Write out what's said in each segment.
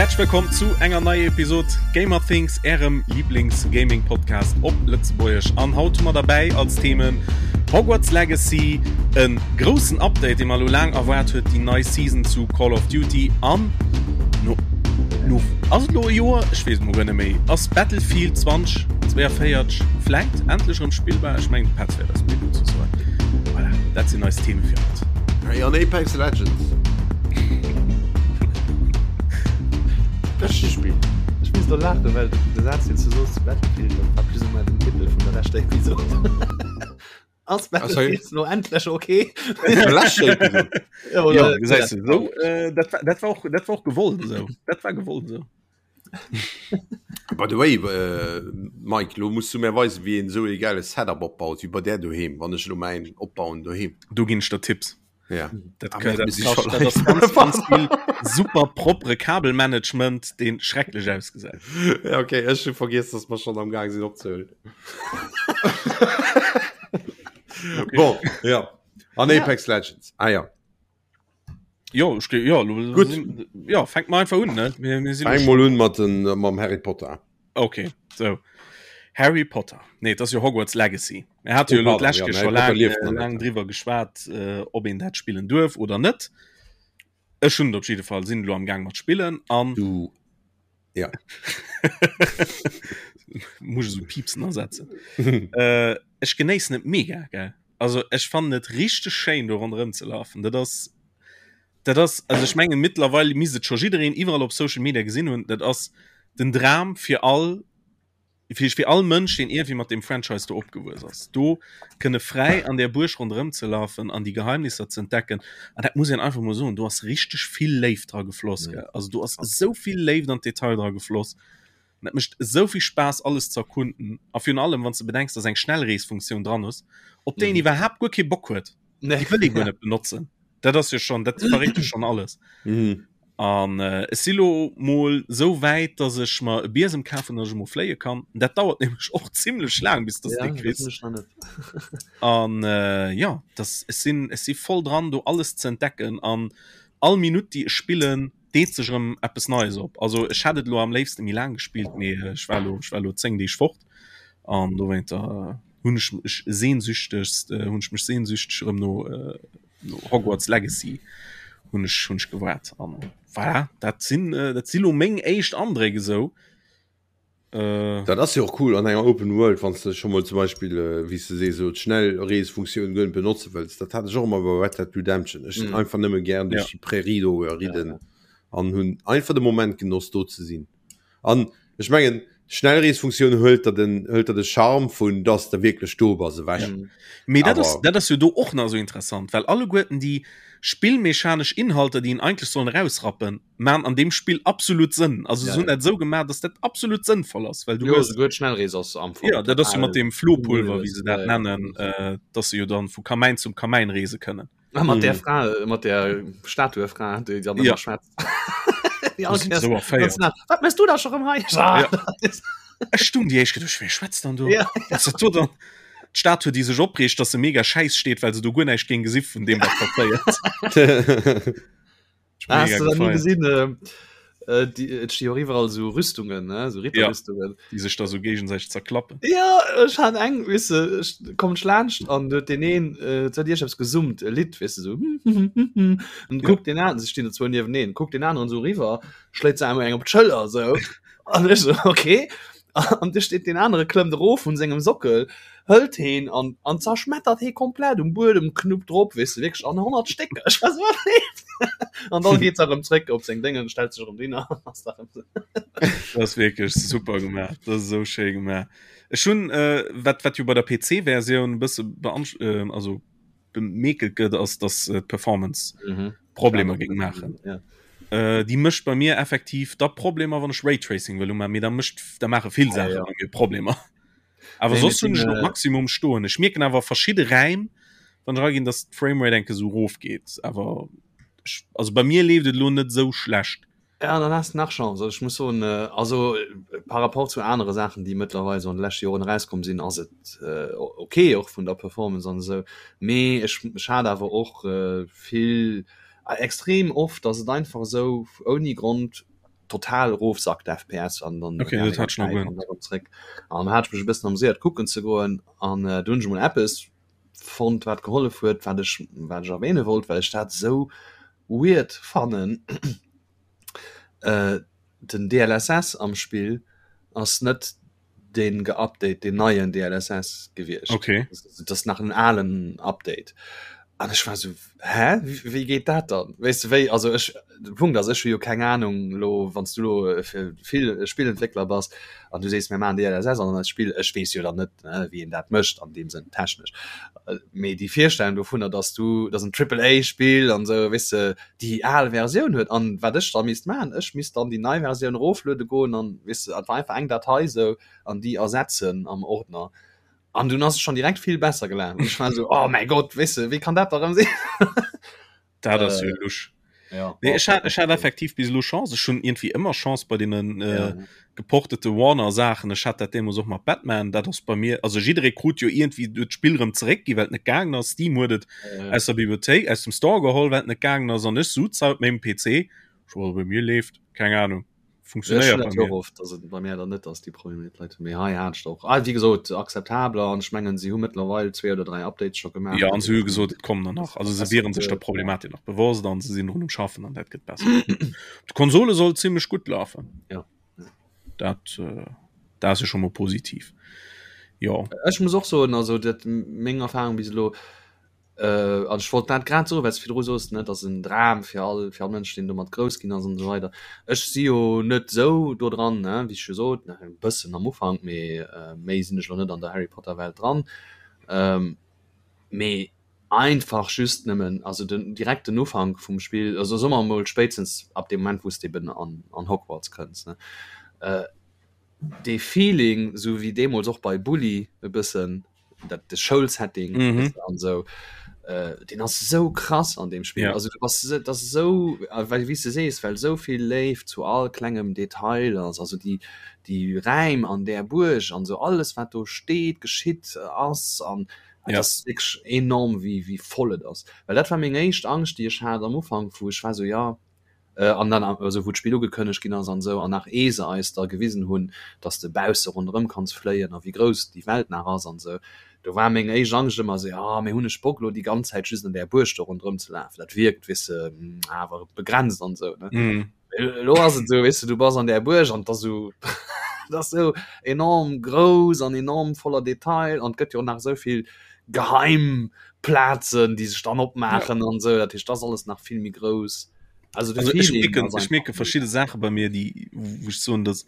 Häerzlech wëllkomm zu enger neier Episod Gamer Things, ärem Lieblings-Gaming-Podcast op Lëtzebuergesch. An haut hu mer derbäi als Themen Hogwarts Legacy, e groussen Update, dee mer elo laang erwaart huet, déi nei Season zu Call of Duty an no, no ass et elo e Joer? Ech weess et mol guer net méi. Ass Battlefield 2042 vläit endlech erëm spillbar? Ech mengen de Petz wäert eis méi dozou soen. Voilà, dat sinn eis Theme fir haut. Hey, an Apex Legends. Beschte Spill. Ech misst do laachen, well de Saz, deen s du soos zu Battlefield, dat war plus ou moins den Titel vun der leschter Episod. Ass Battlefield lo endlech okay? Ja, ja, gesäis du, so, äh, dat, war, dat, war och, dat war och gewollt esou. Dat war gewollt esou. By the way, äh, Mike, lo muss du mir weisen, wéi een esou e geile Setup opbaut, wéi bei där doheem, wann ech lo mäin opbauen doheem. Do ginn ech der Tipps. Ja. Dat, Ah, dat, mir dat, si scho dat ass ganz, ganz vill super propere Kabelmanagement, deen schrecklech ausgesäit. Ja, okay, ech hu vergiess, dass mer schon am Gang sinn opzehuelen. Okay. Bon, ja. An Apex Legends. Ah ja. Jo, ech, ja, lo, Gutt. sinn- ja, fänk mal einfach un, ne? Mir, mir sinn Fang mol un mat den, mam Harry Potter. Okay, so. Harry Potter. Nee, dat ass jo Hogwarts Legacy. Mir hate jo Oh, elo pardon, d'lescht ja, Keer Harry scho Potter laang, lieft äh, nach net, laang ja. driwwer geschwat, äh, ob een dat spillen duerf oder net. Ech hunn et op jidde Fall, sinn elo am Gaang mat spillen an Du. Ja. muss ech esou Piepsen ersetzen. äh, ech genéissen et mega, gell. Also ech fannen et richteg schéin do ronderëm ze lafen. Dat ass dat ass also ech mengen mittlerweile misst et scho jiddereen iwwerall op Social Media gesinn hunn, dat ass den Dram fir all fir fir all Mënsch, deen iergendwéi mat deem Franchise do opgewuess ass, do kënne fräi an där Buerg ronderëm ze lafen an déi Geheimnisser ze entdecken. An dat muss een einfach mol soen, do ass richteg vill Léift dra gefloss, gell. Also do ass esou vill Léift an d'Detail dra gefloss. An dat mécht esou vill Spaass alles ze erkunden. A virun allem wann s de bedenks, dass eng Schnellreesfunktioun dran ass, op déi een iwwerhaapt guer kee Bock huet. Nee. Déi wëll ee guer net benotzen. Dat ass jo schon, dat verréit jo schon alles. Mhm. An äh, ech si lo mol sou wäit, dass ech mer e Biesem kafen, dass ech mol fléie kann. Dat dauert nämlech och zimmlech laang, bis dass Ja, de dat kriss. mech nach net. An äh, ja, das, ech sinn, ech si voll dran, do alles ze entdecken. An all Minutt, déi ech spillen, deet sech erëm eppes Neies op. Also ech hätt et lo am léifste méi laang gespillt, mee ech war lo, ech war lo 10 Deeg fort. An dowéinter hunn ech mech sehnsüchtegst, äh, hunn ech mech sehnsüchteg erëm no, äh, no Hogwarts Legacy hunn ech hunn ech gewaart an voilà, dat sinn äh, dat si lo meng éischt Andréck esou. Äh, dat ass jo och cool an enger Open World, wann du schon mal zum Beispiel äh, wéi s de sees, so d'Schnellreesfunktioun guer net benotze wëlls. Dat hat ech och ëmmer bei Red Dead Redemption. Ech sinn mm. einfach nëmme gern duerch ja. déi Prärie do ridden ja, ja. an hunn einfach de Moment genoss do ze sinn. An ech mengen, d'Schnellreesfunktioun huelt der den, huelt der de Charme vun dass de wierklech do bass ewech. Ja. Mee dat ass, Awer. dat ass jo do och nach esou interessant, well alleguerten déi spillmechanesch Inhalter, déi een eigentlech sollen erausrappen, maan an deem Spill absolut Sënn. Also Ja, se hunn ja. dat esou gemaach, dass dat absolut sënnvoll ass, well du Jo, hues, souguer d'Schnellrees ass am Fong ja, dat ass jo mat total deem Flohpulver, wéi unnötig. se dat Ja, ja. nennen, äh, dass se jo dann vu Kamäin zum Kamäin reese kënnen. Ah, mat der Fra, äh, mat der Statuefra, déi dann Ja. ëmmer schwätzt. Déi Wo all si Kéiers sou ganz erféiert. nah, Wat mëss du da scho rëm hei? Ah, Ja. Ech stung déi éischt geduecht, wee schwätzt dann do? Ja. Was dat do dann? D'Statue, déi sech opreegt, dass se mega schäiss steet, well se do guer näischt géing gesi vun deem, wat passéiert. Ah, hast du da nie gesinn äh, äh, die, et sti och iwwerall so Rüstungen ne so Ritterrüstungen ja, die sech da so géigesäiteg zerklappen ja ech han eng wis du ech kommen laanscht an huet den een äh, huet Iech gesummt e Lidd wis du so und Ja. guckt den an se stinn der zwou nieweneen guckt den aneren so riwwer schléit se einmal eng op d'Schëller so an ech so okay an du steet den anere klëmmt erof vun sengem Sockel hëlt heen an an zerschmettert hee komplett um Buedem knuppt drop weess de wierklech an 100 Stécker ech war so an dann geet se erëm zréck op seng Déngen stellt sech erëm hin an ass da erëm sou. Dat ass wierklech super gemaach dat ass esou schéi gemaach ech hunn äh, wat wat jo bei der PC Versioun e bësse beansch äh, also bemäkelt gëtt ass dass äh, d'Performance mhm. Problemer géing maachen ja. äh, déi mécht bei mir effektiv da Problemer wann ech Raytracing wëll umaachen mee da mécht da maache vill Ja, Saache ja. bei mir Problemer Awer Nee, soss mir hunn ech sinn, op äh, Maximum stoen. Ech mierken awer verschidde Räim, wann ech eraginn, dass d'Framerate enke sou rof geet. Awer ech, also bei mir leeft et elo net sou schlecht. Ja, dann has de nach Chance. Also ech muss soen, äh, also äh, par rapport zu anere Saachen, déi mëttlerweil so an de leschte Joren erauskomm sinn, ass et äh, okay och vun der Performance an esou. Mee ech, ech hat awer och äh, vill, äh, extrem oft, dass et einfach esou ouni Grond. total erofsackt FPS an dann okay, dat hat schon noch zréck. An hat ech mech e bëssen amuséiert kucken ze goen an äh, du hunn ech mol eppes fonnt wat gehollef huet, wat ech wat ech erwähne wollt, well ech dat sou weird fannen. Äh, den DLSS am Spill ass net den geupdate den neien DLSS gewiescht. Okay. Das ass nach en alen Update. An ech war so hä wéi geet dat dann? Weess de wéi also ech de Punkt ass ech hu jo keng Ahnung lo wann s du lo äh, fir vill Spillentwéckler bass an du sees mir maachen DLSS an eist Spill ech weess jo dann net ne, wéi een dat mécht an deem Sënn technesch. Äh, mee déi Virstellung dovunner dass du dass en Triple A Spill an sou weess de déi al Versioun huet an wat ech da misst maachen, ech misst dann déi nei Versioun erofluede goen an weess de, et war einfach eng Datei sou an déi ersetzen am Ordner an dunn ass et schonn direkt vill besser gelaf an ech war sou, oh mäi Gott, weess de, wéi kann dat da rëm sinn? Dat ass jo lusch. Ja, Nee, ech hat, ech hat effektiv bis elo Chance. Ech hunn irgendwie ëmmer Chance bei deenen äh, ja. geportete Warner Saachen. Ech hat dat deemools och mat Batman. Dat ass bei mir, also jidderee krut jo irgendwie d'Spill rëm zeréck gi, well et net gaangen ass. Steam huet et ja. aus der Bibliothéik, aus dem Store geholl, well et net gaangen ass. An ech suz haut mengem PC. Ech war bei mir leeft, keng Ahnung. Funktionéiert bei mir. Oft, dass et bei mir dann net ass déi Probleme mit Leit méi hei hat och ah, wie gesot akzeptabler an ech mengen si hu mëttlerweil zwee oder dräi Updates scho gemaach. Ja an se hu gesot et kommen der nach also se wieren sech der Problematik nach bewosst an se sinn drun um schaffen an dat gëtt besser. D'Konsole soll zimmlech gutt lafen. Ja. Dat äh, dat ass jo scho mol positiv. Jo. Ech muss och soen also dat meng Erfahrung bis elo Äh, an ech wollt dat grad soen, well s virdru soos, ne, dat ass en Dram fir all, fir all Mënsch, deen domat grouss ginn ass an esou weider. Ech si jo net esou do dran, ne, wéi ech jo sot, ne, e bëssen am Ufank, mee äh, méi sinn ech elo net an der Harry Potter Welt dran. Ähm, mee einfach just nëmmen, also den direkt den Ufank vum Spill, also soe mer emol spéitstens ab deem Moment, wou s de eben an, an Hogwarts kënns, ne, äh, dee Feeling, esou wéi deemools och bei Bully e bëssen, dat de Schoulsetting mm -hmm. an so äh, den ass so krass an dem Spiel ja. also du was das so äh, weil wie du sees well so viel leeft zu all klengem Detail ass also die die Reim an der Burg an so alles wat do steht geschitt äh, ass an ja. das wirklich enorm wie wie voll et ass weil dat war meng éischt Angst die ich hat am Ufang wo ich war so ja An dann, also wou d'Spill ugekënnegt ginn ass an esou, an nach ee se eis da gewisen hunn, dass de bausse ronderëm kanns fléien a wéi grouss déi Welt nach ass an esou, do war meng éischt Angscht ëmmer esou, jo, mee hunn ech Bock elo déi ganz Zäit just an där Buerg do ronderëm ze lafen? Dat wierkt, weess de, awer begrenzt an esou, ne? Elo ass et esou, weess de, du bass an där Buerg an et ass esou, et ass esou enorm grouss an enorm voller Detail an et gëtt jo och nach esou vill geheim Plazen, déi sech dann opmaachen an esou. Dat heescht, dat ass alles nach vill méi grouss. Also, also ech mierken, ech mierke verschidde Saache bei mir, déi wou ech soen, dass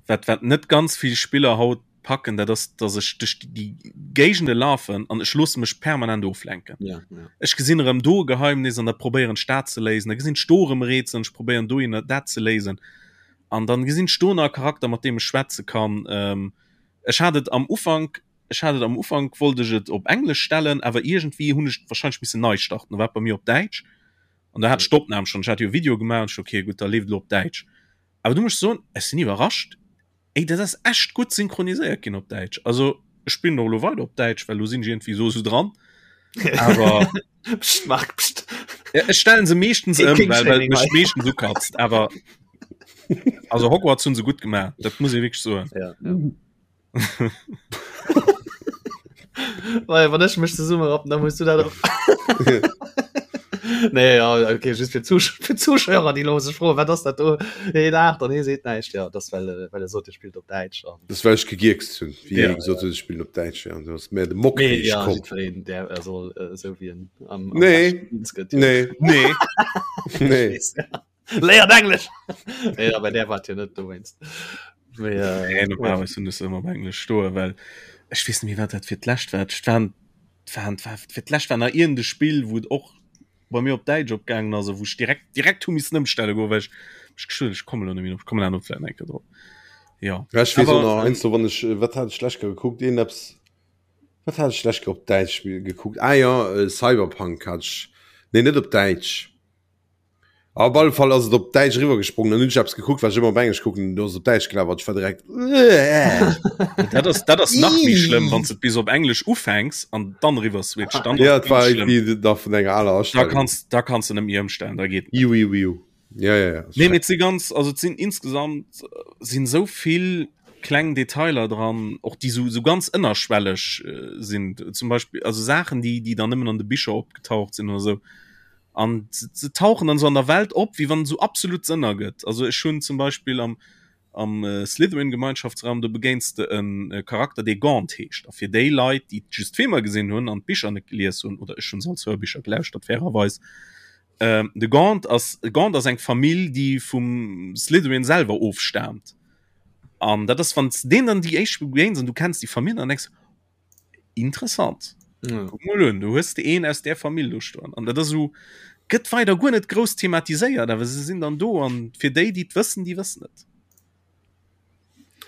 wat wat net ganz vill Spiller haut packen, dat ass, dass ech duerch déi Géigende lafen an ech loosse mech permanent oflenken. Ja, ja. Ech gesinn erëm do e Geheimnis an da probéieren ech dat ze léisen, da gesinn ech do erëm e Rätsel an ech probéieren dohinner dat ze léisen an dann gesinn ech do nach e Charakter, mat deem ech schwätze kann. Ähm, ech hat et am Ufank Ech hat et am Ufank wollt ech et op Englesch stellen, awer iergendwéi hunn ech wahrscheinlech missen nei starten, da war et bei mir op Däitsch an da hat ech d'Opnam schonn, ech hat jo e Video gemaach an ech okay gutt, da leeft elo op Däitsch. Awer du muss ech soen, ech sinn iwwerrascht, ey dat ass echt gutt synchroniséiert ginn op Däitsch. Also ech spillen och elo weider op Däitsch, well elo sinn ech iergendwéi esou esou dran, awer Psst, Marc, psst. Ja, ech stellen se meeschtens ëm, well well et mech meeschtens ukatzt, awer also Hogwarts hunn se gutt gemaach, dat muss ee wierklech soen. Ja, ja. Well, wann ech mech zesumme rappen, dann muss du dat och. Nee, ja, okay, just fir Zusch fir Zuschauer, déi lo sech froen, wat ass dat do? Hee laacht an hee seet näischt. Ja, das well, äh, well e sot, e spillt op Däitsch an. Das well ech gegierkst hunn, wéi Ja, hie gesot huet, ech spillen op Däitsch, ja, du ass mär de Mock Nee, ja, komm. jiddwereen, där er soll äh, esou wéi en am, am Nee. beschten eens gëtt. Ja. Nee, Nee. nee. Weess, ja. Léiert Englesch! Nee, aber der war jo net dowéinst. Mee, äh, Nee, normalerweis hunn ech se ëmmer op Englesch stoen, well ech weess net méi, wat dat fir d'lescht war. Et waren, waren, war, fir d'lescht war nach iergend e Spill, wou et och bei mir op Däitsch opgaangen ass a wou ech direkt, direkt hu missen ëmstelle goen, well ech mech geschuet hunn, ech kommen elo net méi drop, ech kommen awer vläicht nach eng Kéier drop. Jo. Ja, ech weess och Awer, nach eins, wann ech, wat hat ech d'lescht Kéier gekuckt? Een eppes, wat hat ech d'lescht Kéier op Däitsch gekuckt? Ah jo, Cyberpunk hat ech, nee, net op Däitsch. Op alle Fall ass et op Däitsch eriwwer gesprongen. Dann hunn ech eppes gekuckt, wat ech ëmmer op Englesch kucken, do ass et op Däitsch gelaf an ech war direkt Dat ass, dat ass nach méi schlëmm, wann s de bis op Englesch ufänks an dann eriwwer switcht. Dann Ja, et war irgendwie nach vun enger aler Da Astellung. kanns, da kanns de net méi ëmstellen, da geet net. Iu, iu, iu. Ja, ja, ja. Nee, mee si ganz also et sinn insgesamt äh, sinn sou vill kleng Detailer dran och déi sou, sou ganz ënnerschwelleg äh, sinn zum Beispill also Saachen déi déi dann nëmmen an de Bicher opgetaucht sinn oder sou an se, se tauchen dann sou an der Welt op wéi wann et sou absolut Sënn ergëtt also ech hunn zum Beispill am am äh, Slytherin Gemeinschaftsraum do begéins de en äh, Charakter dee Gaunt heescht a fir déi Leit déi just d'Filmer gesinn hunn an d'Bicher net gelies hunn oder ech hunn se als Hörbicher gelauschtert fairerweis Ähm, de Gaunt ass Gaunt ass eng Famill, déi vum Slytherin selwer ofstaamt. An dat ass wann deen dann déi éischt begéins an du kenns déi Famill an denkst interessant. Ja. Guck mol un, du hues de een aus der Famill do stoen. An dat ass so gëtt weider guer net grouss thematiséiert, awer se sinn dann do an fir déi, déi et wëssen, déi wëssen et.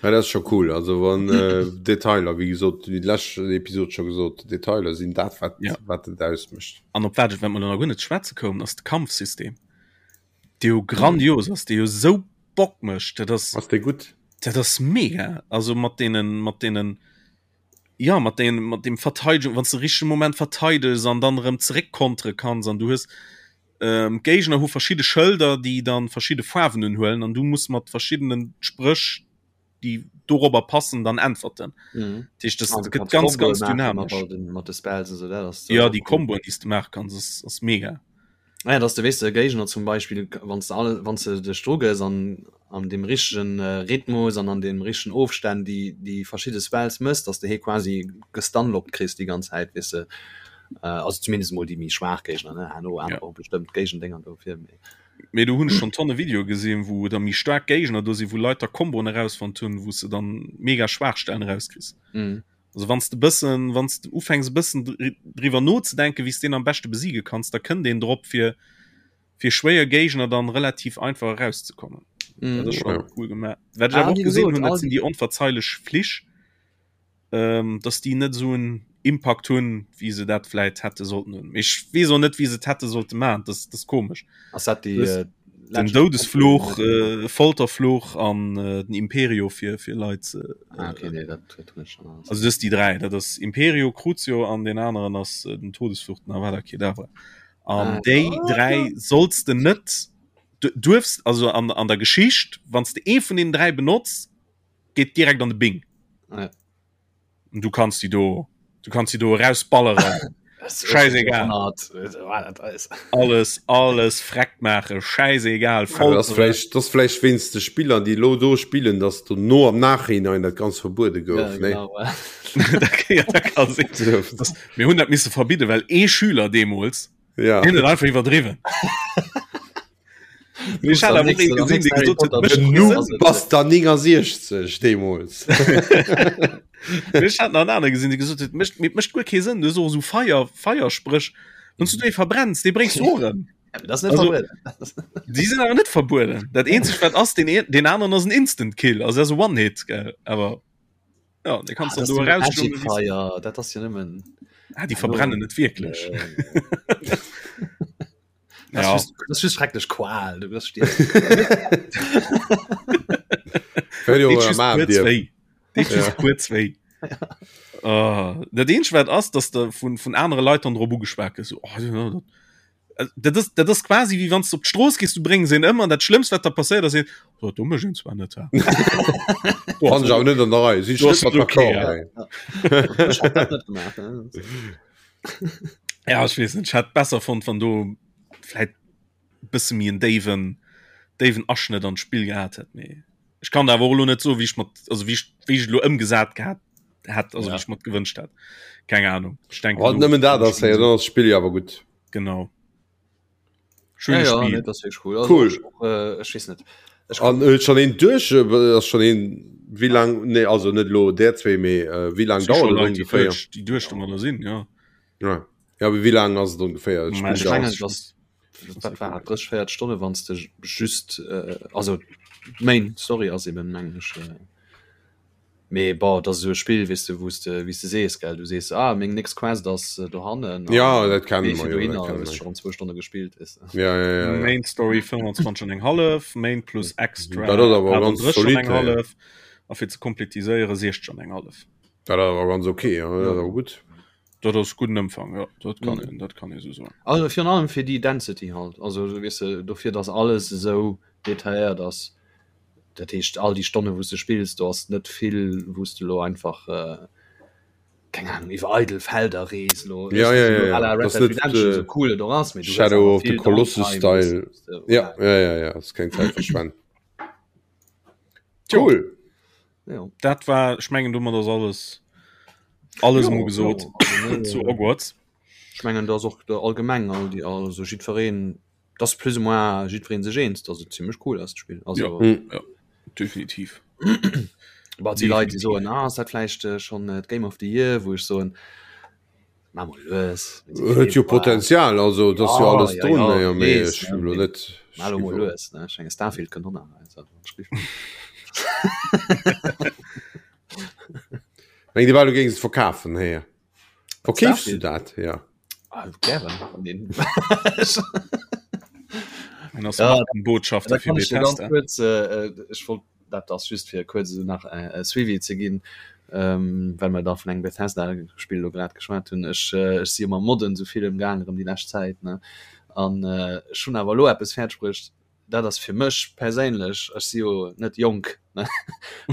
Ja, dat ass scho cool. Also wann äh, Detailer, wéi gesot, wéi d'lescht Episod scho gesot, Detailer sinn dat, wat, Ja. wat et ausmécht. An op wat ech, wat mer nach guer net schwätze koumen, ass de Kampfsystem, dee jo grandios ass, dee jo sou Bock mécht. Dat ass, Ass dee gutt? dat ass mega. Also mat deenen, mat deenen, ja, mat deenen, mat dem Verteidigung, wann s de richtege Moment verteidegs an dann erëm zeréckkontere kanns an du hues, Ähm, d'Géigner hu verschidde Schëlder, déi dann verschidde Faarwen unhuelen an du muss mat verschiddenen Spréch, déi dorobber passen, dann äntwerten. Mhm. Dat heescht, das Ah, du gëtt kannst ganz, Komboe ganz maachen mat dynamisch. all den, mat de Spells und so, dat ass Ja, déi cool. Komboen, déi s du maache kanns, ass, ass mega. Ah ja, dass du weess de Géigner zum Beispill, wann s de alle, wann s de dech dru gëss an an dem richtegen Rhythmus an an dem richtegen Ofstänn déi déi verschidde Spells mëss, dass de hee quasi gestunlockt kriss déi ganz Zäit, weess de. Also zumindest mol déi méi schwaach Géigner, ne, herno aner och bestëmmt Géigendénger dofir, mee. Mee do hunn ech schonn tonne Videoe gesinn, wou da méi staark Géigner do sinn, wou Leit da Komboen erausfonnt hunn, wou s de dann mega Schwaachstellen erauskriss. Also wann s de bëssen, wann s de ufänks e bëssen driwwer nozedenken, wéi s deen am beschte besiege kanns, da kënnt een drop fir fir schwéier Géigner dann relativ einfach erauszekommen. Mm. Dat ass schon Ja. cool gemaach. Wat ech Ah, awer och wie gesinn gesot, hunn, dat all sinn déi onverzeilech Flich, ähm, dass déi net esou en Impact hunn, wéi se dat vläit hätte sollten hunn. Mee Ech weess och net, wéi se et hätte sollte maachen. Das, das ist komesch. Ass dat déi Das- äh, Den Legend- Doudesfluch, äh, Folterfluch an äh, den Imperio fir, fir Leit ze. Ah, okay, nee, dat dat hunn ech schon alles. Also das déi 3, dat ass Imperio, Crucio an den aneren ass äh, den Todesfluch, den Avada Kedavra. An Ah. déi 3 solls de net du duerfs also an, an der Geschicht, wann s de ee vun den 3 benotz, geet direkt an de Bing. Ah, ja. Und du kannst die do du kannst die do rausballeren. Scheißegal. Alles alles freckt maache, scheißegal. Ja, das vielleicht, das vielleicht wéinst de Spiller, déi lo do spillen, dass du no am Nachhinein dat ganz verbuede gouf. Ja, ne? genau. Ja, dat kann sinn. Das, mir hunn dat misse verbidde, well ee Schüler deemools Ja. deen huet einfach iwwerdriwwen. Mir hat awer och een gesinn, dee gesot huet, mécht Den kee Noob Sënn. bass der 69 deemools. Ech hat nach en anere gesinn, dee gesot huet, mécht mécht mécht guer kee Sënn, du hues och esou Feier Feierspréch, wann s du déi verbrenns, déi bréngs du och ëm. Ja, das net Also- verbueden. Déi sinn awer net verbueden. Dat eenzegt wat ass, den een den aneren ass en Instant Kill, also dat ass e One-Hit, gell, awer ja, de kannst Ah, dann das do ist eraus Magic Fire, dat ass jo nëmmen ah, die verbrennen net wierklech. Äh, Das Ja. ist just, das ist just schrecklech Qual, du wirst stierwen. Hör jo Deet mal just am kuerz Dir. wéi. Deet just Ja. kuerz wéi. Ah, dat eenzegt wat ass, dass de vun vun anere Leit dann drop ugeschwat gëss, so, oh, ja, dat Dat ass, dat ass quasi wéi wann du op d'Strooss gees, du bréngs een ëm an dat Schlëmmst wat der passéiert ass een, oh, do mécht een zwar net. Fand ech awer net an der Rei. Si Du net ass mat okay, d'accord. ja. Ech hätt dat net gemaach. Ne? Ja, ech weess net, ech hätt besser fonnt, wann do vläit bësse méi en déiwen, déiwen Aschnëtt an d'Spill gehat hätt. Mee ech kann awer och elo net soen, wéi ech mat, also wéi ech, wéi ech elo ëmgesat gehat hätt, also Ja. wéi ech mat gewënscht hätt. Keng Ahnung. Ech denken, Wann do- nëmmen dat ass, hey, dann ass d'Spill jo awer gutt. Genau. Schöne Ja, ja, Spiel. nee, das ist cool. Also, Cool. Ich, auch, äh, ich weiß nicht. Ich An äh, schon een duerch äh, ass schon een wéi lang nee also net lo der zwee mee äh, wéi lang Si schon dauert et Leit, déi ongeféier? duerch, déi duerch domadder sinn, ja. Ja. Ja, awer wéi lang ass et ongeféier? Mä Spill ich dauert. mengen, das, dat war 30, 40 Stunde, wann du just, äh, also Main Story ass eben, mengen ich. Äh, Mee bon, dat ass esou e Spill, weess de, wou s de, wéi s de sees, gell, du sees, ah, meng nächst Quest ass dohannen Ja, dat kenne gees mer du jo, dat dohinner, kenne hues mer. schonn zwou Stonne gespillt, weess de. Ja, ja, ja, ja. Main Story 25 an eng hallef, Main plus Extra Dat ass awer ganz 38 an zolidd, eng ja. hallef a fir ze kompletiséiere 60 an eng hallef. Dat ass awer ganz okay, ja, dat ass awer gutt. Dat ass gudden Ëmfang, jo, dat kann een, dat kann ee sou soen. Also virun allem fir déi Density halt, also weess de, dofir datt alles esou detailléiert ass, dat heescht all déi Stonne wou s de spills, do ass net vill wou s de elo einfach, keng Ahnung, iwwer eidel Felder rees elo, Ja, ja, ja, ja. à la Red Das Dead net, Redemption, äh, sou cool et och ass, mee du hues Shadow awer of the vill Colossus Downtime, Style. wou s de, Ja, voilà. ja, ja, ja, ass keng Zäit verschwenden. Tjo. Cool. Ja. Dat war, ech mengen domat ass alles alles Jo, emol gesot jo, also mir, zu Hogwarts. Ech mengen dat ass och de allgemeng all déi also jiddwereen dat ass plus ou moins jiddwereen sech eens, datt et zimmlech cool ass d'Spill. Also Ja, ja, definitiv. Bon, et si Leit déi soen, ah ass dat vläicht schonn d'Game of the Year, wou ech soen, Ma mol lues. Huet jo Potenzial, also et ass jo alles ja, drun, ja, jo, mee weess, ech ne, hu lo net. Ma lo mol lues, ne? Ech menge Starfield kënnt och nach also, Meng Dir war du géings et verkafen, héier. Verkeefs du dat? Ja. Ah, gären. Wann En ass Ja, Markenbotschafter da fir kann ech dir ganz Bethesda. kuerz, äh, ech wollt Dat ass just fir kuerz esou nach e Suivi ze ginn, well mer da vun engem Bethesda-Spill elo grad geschwat hunn. Ech ech si jo mam Modden esou vill ëmgaang erëm déi lescht Zäit, ne, an ech hunn awer elo eppes fäerdeg bruecht, dat ass fir mech perséinlech, ech si jo net jonk, ne,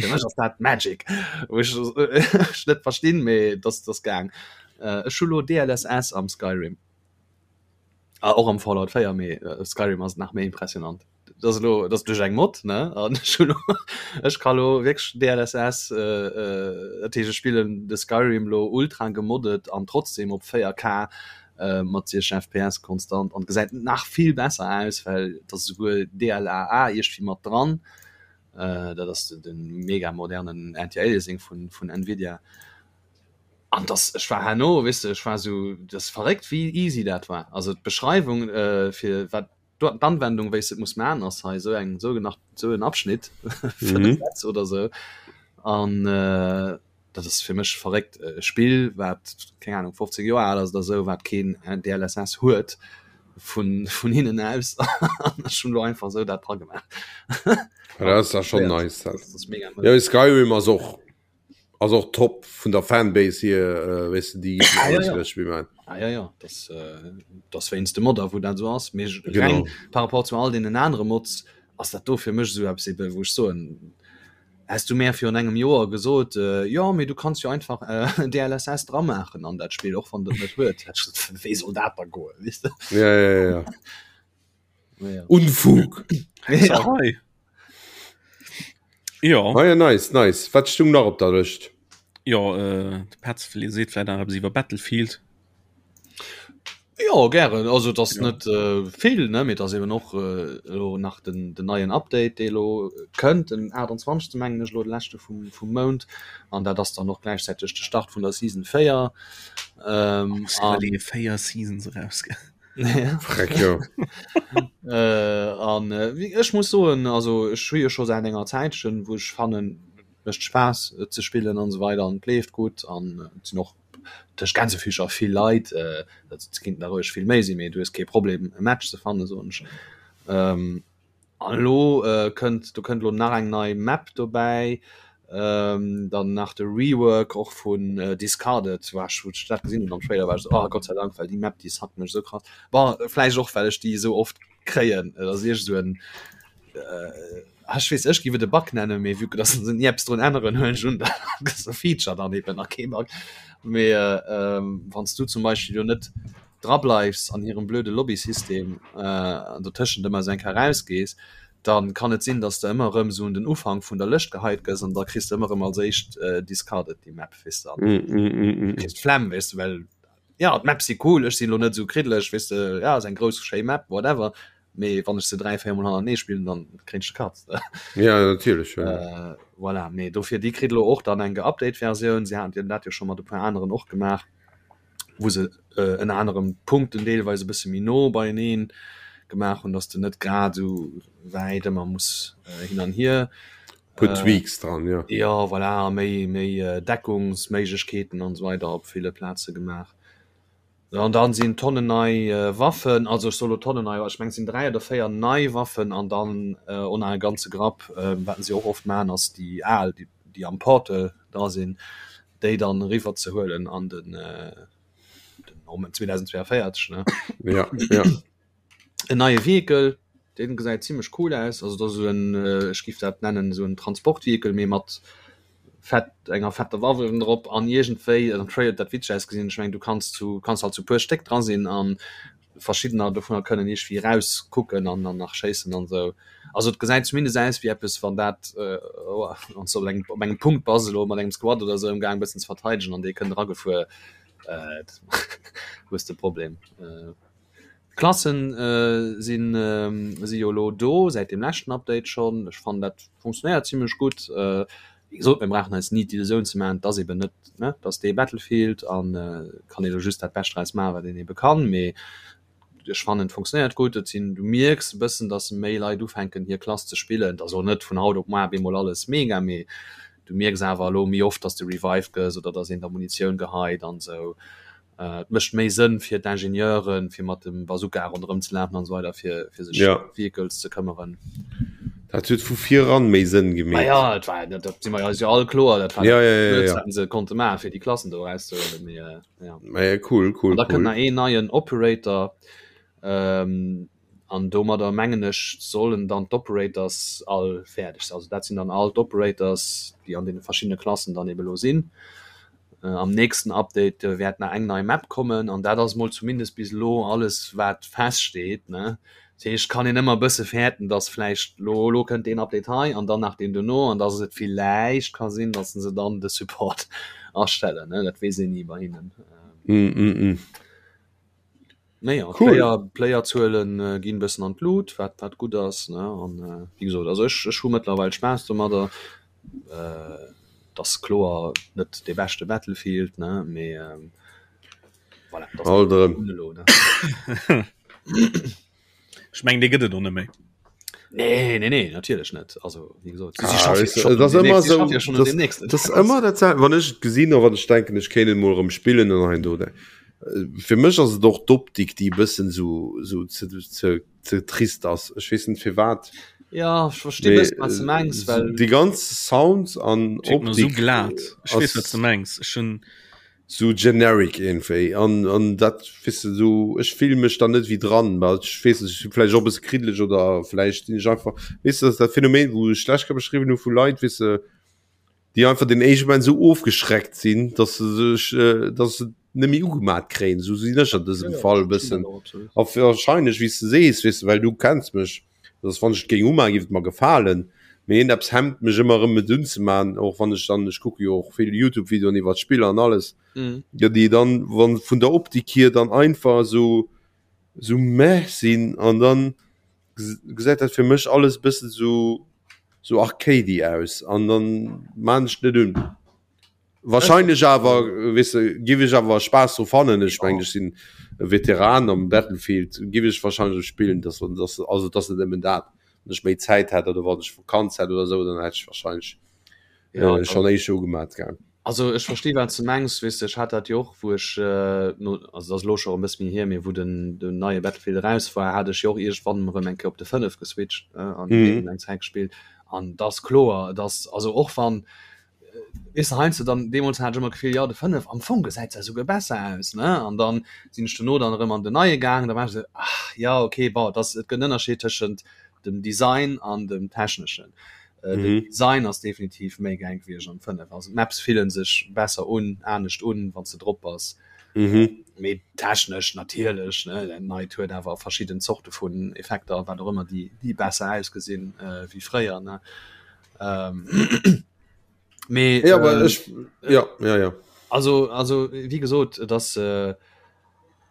fir mech ass dat Magic, wou ech ech net verstinn, mee et ass et ass gaang. Ech hu lo DLSS am Skyrim. Ah, och am Fallout 4, mee Skyrim ass nach méi impressionant. Dat ass elo, dat ass duerch eng Mod, ne? An ech hunn elo, ech ka lo wierklech DLSS, dat heescht ech spillen de Skyrim lo ultra gemoddet an trotzdem op 4K mat 60 FPS konstant an gesäit nach vill besser aus, well et ass esouguer DLAA iergendwéi mat dran. Dat ass de mega modernen Anti-Aliasing vun vun Nvidia. An dass ech war herno, weess de, ech war esou, dat ass verréckt wéi easy dat war. Also d'Beschreiwung fir wat d'Anwendung wéi s de et muss man ass hei esou eng esou nach esou en Abschnitt 5 Sätz oder esou. An dat ass fir mech verréckt e Spill wat keng Ahnung 15 Joer al ass oder esou, wat keen DLSS huet vun vun hinnen aus an ech hunn elo einfach esou dat dra gemaach. Dat ass da schonn nice. Dat ass mega. Jo Skyrim ass och Ass och top vun der Fanbase hier, weess de, déi Ah, ja, alles ja. iwwer d'Spill man. Ah, ja, ja. Das, äh, das wéinst de Modder, wou dat so ass. Mee Genau. reng par rapport zu all deenen anere Mods ass dat do fir mech esou eppes eben, wou ech soen, häss du mär virun engem Joer gesot, äh, jo, mee du kanns jo einfach äh, DLSS dra maachen an dat Spill, och wann et net huet, hätt ech gesot, wéi soll dat da goen, weess de? Ja, ja, ja, ja. Ja. Unfug. Hexerei. Ja. Ah ja, nice, nice. Wat stung nach op der Lëscht? Ja, äh, de Petz seet vläit nach eppes iwwer Battlefield. Ja gären also das Ja. net äh, vill ne mee das eben och äh, elo nach den, den neien Update dee lo kënnt den 28. mengen ech lo de leschte vum, vum Mount an dat ass dann och gläichzäiteg de Start vun der Season 4 ähm, An an, véier Seasons erausge. Ja. Freck, jo. Äh, an äh, wie- ech muss soen also ech hu jo scho säit enger Zäitchen wou ech fannen mécht Spaass et ze spillen an esou weider an et leeft gutt an äh, et sinn och tëscht Gänsefüßcher vill Leit äh, dat et kinnten der roueg vill méi sinn mee du hues kee Problem e Match ze fannen soen ech. Ähm, An elo kënnt, do kënnt elo nach eng nei Map dobäi, dann nach de Rework och vun Discarded, war ech, wou ech dat gesinn hunn am Trailer, war ech esou, oh Gott sei Dank, well déi Map, déi suckt mech esou krass. Bon, vläicht och, well ech déi esou oft kréien, et ass iergend esou en, ech weess, ech géif et e Bug nennen, mee vue que dass se ni eppes drun änneren, huelen ech un, dat ass e Feature dann eben a kee Bug. Mee wann s du zum Beispill jo net drableifs an hirem blöde Lobbysystem an dotëschent ëmmer esou eng Kéier erausgees, da kann et sinn, dass de ëmmer erëm esou un den Ufank vun der Lëscht geheit gëss an da kriss de ëmmer erëm als éischt discarded déi Map, weess de, an kriss d'Flemm, weess de, well jo, d'Maps si cool, ech sinn elo net esou kriddeleg, weess de, jo, ass eng grouss schéi Map, whatever, mee wann ech se 3, 4 mol hannertenee spillen, dann kréien ech de Katz. Ja, natierlech, jo. Voilà, mee dofir, déi kritt elo och dann eng geupdate Versioun, si haten dat jo scho mat e puer aneren och gemaach. wou se ënner anerem d'Punkten deelweis e bësse méi no beieneen gemaach hunn, dass de net grad esou wäit ëmmer muss hin an hier. Puer Tweaks dran, jo. Jo, voilà, a méi, méi Deckungsméiglechkeeten an esou weider op ville Plaze gemaach. An dann sinn Tonnen nei Waffen, also ech soe lo Tonnen nei, ech mengen et sinn 3 oder 4 nei Waffen an dann och nach e ganze Grapp, wat se och oft maachen, ass déi al, déi am Portal dra sinn, déi dann eriwwer ze huelen an den. den Moment 2042 ne ja, ja. En neie Vehikel, deen gesäit zimmlech cool aus, also dat ass esou en, ech giff dat nennen esou en Transportvehikel, mee mat fett enger fetter Waff uewen drop an iergendwéi am Trailer huet dat witzeg ausgesinn, ech mengen du kanns zu kanns halt zu puer Stéck dra sinn an verschiddener dovunner kënnen iergwéi eraus kucken an dann nach schéissen an esou. Also et gesäit zumindest aus wéi eppes wann dat wann s de op engem op engem Punkt bass elo mat engem Squad oder esou amgaang bëssen ze verteidegen an dee kënnt eragefuer, hues de e Problem. D'Klassen sinn si jo elo do säit dem leschten Update schonn. Ech fannen dat funktionéiert zimlech gutt. Wéi gesot, mir brauchen eis ni d'Illusioun ze maachen, et ass eben net, ne, et ass dee Battlefield an kann ee lo just dat Bescht draus maachen, wat een ebe kann. Mee ech fannen et funktionéiert gutt. Et sinn, du mierks e bëssen, datt méi Leit ufänken hir Klass ze spillen. Et ass och net vun haut op muar bemol alles mega, mee du mierks awer elo méi oft, datt s de revived gëss oder datt een der Munitioun geheit an esou. Et mécht méi Sënn fir d'Ingenieuren, fir mat dem Bazooka ronderëm ze lafen an esou weider, fir fir sech ja. Vehicles ze këmmeren. Dat huet vu viran méi Sënn gemeet. Ah ja, et war, dat, dat si mer eis jo all kloer, dat war ja, ja, ja, ja. wat se konnte maachen, fir déi Klassen do erauszehuelen. Mee, äh, ja. Ja, cool, cool, an da cool. kënnt nach een neien Operator. Ähm, An domadder mengen ech sollen dann d'Operators all fäerdeg sinn. Also dat sinn dann all d'Operators, déi an deene verschiddene Klassen dann ebe lo sinn. Am nächsten Update wäert nach eng nei Map kommen an dat ass mol zumindest bis elo alles wat feststeet, ne. Dat heescht, kann een ëmmer e bësse fäerten, datt vläicht lo elo kënnt deen Update hei an dann nach deen dono an datt et villäicht ka sinn, datt se dann de Support astellen, ne. Dat weess een ni bei hinnen. Naja, Cool. Player, Playerzuelen äh, ginn bëssen an d'Lut, wat wat gutt ass ne an äh, wéi gesot, also ech ech hu mëttlerweil Spaass domadder. Äh, et ass kloer net dee beschte Battlefield ne, mee ähm, voilà, dat ass Alt erëm. elo ne. Ech mengen dee gëtt et och net méi. Nee, nee, nee, natierlech net. Also wéi gesot, si Ah, schaffe weißt du, schon et ass un dem ëmmer nächsten, si esou, schaffe jo schon un das, dem nächsten. das ëmmer dat sel- wann ech et gesinn a wann ech denken, ech kéint et mol erëm spillen an hein do. Äh, Fir mech ass et och d'Optik, déi e bëssen sou, sou ze, ze, ze trist ass. Ech weess net firwat. Ja, ech versti Mee, bëssen, wat s de mengs, äh, well déi ganz Sounds an Schéngt mer sou Optik glat. Ech weess, wat ass s de mengs. Ech hunn sou generic iergendwéi an an dat weess de sou ech fillen mech dann net wéi dran, well ech weess net, ech si vläicht och e bësse kriddeleg oder vläicht sinn ech einfach weess de, dat ass dat Phänomen wou ech schlecht ka beschriwwen hu vu Leit weess de, déi einfach den éischte Moment sou ofgeschreckt sinn, dass se sech dass se net méi ugemat kréien, sou sinn ech an dësem Fall e bëssen a wahrscheinlech wéi s de sees weess de, well du kenns mech. Dass wann ech et géing umachen, géif et mer gefalen, mee iergendeppes hemmt mech ëmmer erëm et unzemachen, och wann ech dann, ech kucke jo och vill Youtube-Videoen iwwert Spiller an alles, jo déi dann wann vun der Optik hier dann einfach esou esou meh sinn an dann gesäit dat fir mech alles e bëssen esou esou arcadey aus an dann maan ech et net un. Wahrscheinlech awer weess de giff ech awer Spaass dru fannen. Ech mengen ech sinn e Veteran am Battlefield, giff ech wahrscheinlech och spillen, dass dass also et ass net nëmmen dat. Wann ech méi Zäit hätt oder wann ech Vakanz hätt oder esou, dann hätt ech wahrscheinlech Ja, schonn éischter ugemat gell. Also ech versti wat s de mengs, weess de ech hat dat jo och wou ech no also et ass elo scho e bësse méi hier, mee wou den den neie Battlefield eraus war, hat ech jo och iergendwann erëm eng Kéier op de 5 geswitcht an deen eng Zäit gespillt an et ass kloer, et ass also och wann Weess de, heiansdo dann, deemools hat ech ëmmer d'Gefill, jo de 5, am Fong gesäit se esouguer besser aus, ne? An dann sinn ech dono dann erëm an den neie gaangen, da war ech esou, ach jo, okay, bon, et ass, et gëtt en Ënnerscheed tëschent dem Design an dem Techneschen. Den Design ass definitiv méi gäil gewiescht am 5, also d'Maps fillen sech besser un, anescht un, wann s de drop bass. Mee technesch natierlech, ne, dat neit huet awer verschidden Zorte vun Effekter a wat och ëmmer, déi, déi besser ausgesinn wéi fréier, ne? Ähm, mee, ja, aber äh, ich, ja, ja, ja. Also, also wie gesot, dass äh,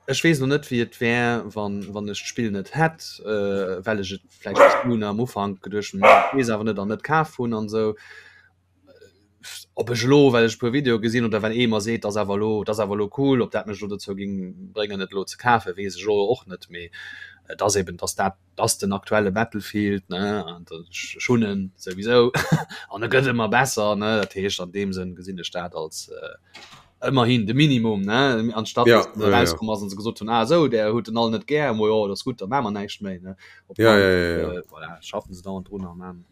ech wees noch net wie et wär wann wann ech d'Spill net hätt, äh, well ech et vläicht nun am Ufank geduecht hunn, wees awer net an net kaf hunn an sou. Ob ech lo well ech puer Video gesinn oder well ee mer seet, dass awer lo, dass awer lo cool, ob dat mech lo dozou ging bréngen et lo ze kafen, wees ech lo och net, mee et ass eben, dass dat ass den aktuelle Battlefield ne an ech hunn en souwisou an e gëtt ëmmer besser ne dat heescht an deem Sënn gesinn ech dat als äh, ëmmerhin de Minimum ne anstatt ja, dass ja, rauskomm ass an se gesot hunn ah sou der huet den all net gär mo jo dat ass gutt da maache mer näischt méi ne op ja, ja, ja, ja. Äh, voilà, schaffen se dauernd drun a man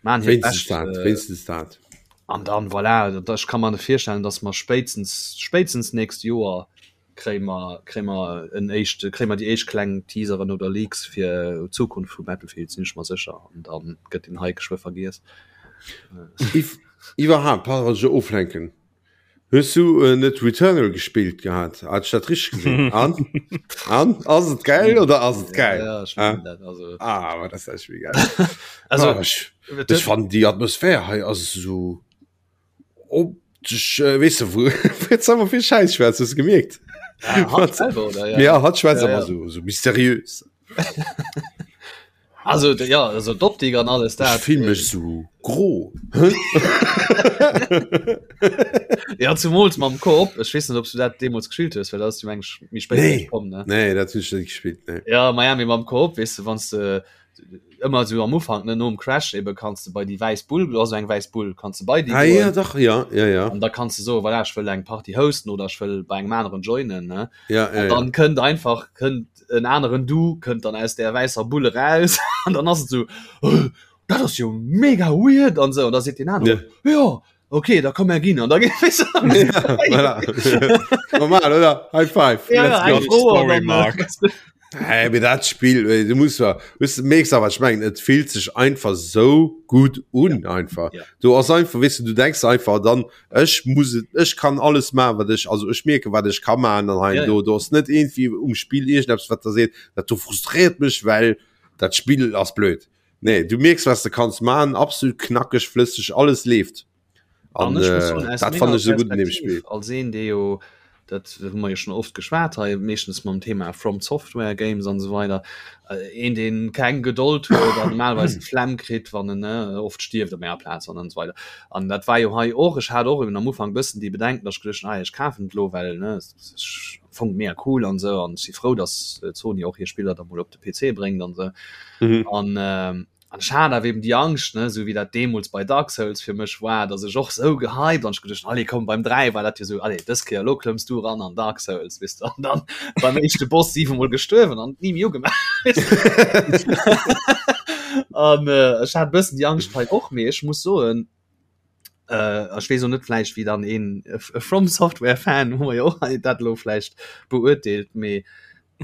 man hiert Wéinstens Bescht dat, äh, wéinstens dat. an dann voilà, dat, ech ka mer net virstellen, dass mer spéitstens spéitstens nächst Joer. Kréie mer, kréie mer en éischt, kréie mer déi éischt kleng Teaseren oder Leaks fir d'Zukunft vu Battlefield, sinn ech mer sécher. An da gëtt den Hype geschwë vergiess. Iwwerhaapt, pardon, wann ech dech oflenken, hues du äh, net Returnal gespillt gehat? Hat ech dat richteg gesinn? An? An? Ass et geil oder ass et geil? Ja, ja, ech ah. dat, also. Ah, aber das ist echt geil. also, ah, ech, ech fand die Atmosphär hei ass so Op dech, äh, weess de, wou jetzt haben wir vill Scheiß schwätzt, hast du gemierkt? Ja, hatt selber, oder? Ja, ja hatt schwätzt Ja, immer ja. so, so mysteriös. Also, ja, also d'Optik an alles Ich dat. fühl mech so gro. Ja, zumools mam Koop. Ech weess net, ob du dat deemools gespillt hues, well dat ass jo eng méi spéit Nee. komm, ne? Nee, dat hunn ech net gespillt, nee. Ja, Miami mam Koop, weess de, wann s de ëmmer sou am Ufank ne nom Crash eben kanns de bei déi wäiss Bull, do ass eng wäiss Bull, kanns de bei déi Ah, ja, goen dach, ja, ja, ja. an da kanns de soen, voilà, ech wëll eng Party hosten oder ech wëll bei engem aneren joinen ne. Ja, ja, An ja. dann kënnt einfach kënnt en aneren Du kënnt dann aus där wäisser Bull eraus an dann ass et sou, oh, dat ass jo mega weird an sou an da seet deen aneren, Ja. jo, okay, da komm mer ginn an da geet Ja, voilà. Normal, oder? High five. Ja, Let's ja, go. eng Fro an Story dann, Mark. äh, Hey, mir dat Spiel äh, du musst ja, weißt du, merkst aber ich mein, et fühlt sich einfach so gut un ja. einfach Ja. du ass einfach weißt du, du denkst einfach dann ech muss et- ech kann alles machen wat ich also ech merke wat ich kann machen dann Ja, ja. du du hast net irgendwie um Spiel irgendetwas wat da seht dat du frustriert mich weil dat Spiel ass blöd nee du merkst was du kannst machen absolut knackig flüssig alles lebt An an ech muss äh, soen, aus dat menger fand ich so gut in dem Perspektiv, Spiel als een, dee jo, dat hu mer jo schon oft geschwat hei, meeschtens mam Thema From Software Games an esou weider, äh, een, deen keng Gedold huet an normalerweis d'Flemm kritt, wann en, ne, oft stierft op menger Plaz an esou weider. An dat war jo hei och, ech hat och eben am Ufank bëssen déi Bedenken, datt ech geduecht hunn, ah, ech kafen et elo, well, ne, ech am Fong mega cool an esou an ech si frou, datt Sony och hir Spiller da mol op de PC bréngt an esou. mhm. An, äh, An ech hat awer eben déi Angscht, ne, esou wéi dat deemools bei Dark Souls fir mech war, datt ech och esou gehypt an ech geduecht hunn, allez komm, beim 3 war dat jo esou, allez dës Kéier, elo klëmms du eran an Dark Souls, weess de, an dann beim éischte Boss siwemol gestuerwen an et ni méi ugemaach, weess de. An ech hat e bëssen déi Angscht hei och, mee ech muss soen, äh, ech weess och net vläicht wéi dann een e From Software Fan hu mer jo och hei dat elo vläicht beurteelt, mee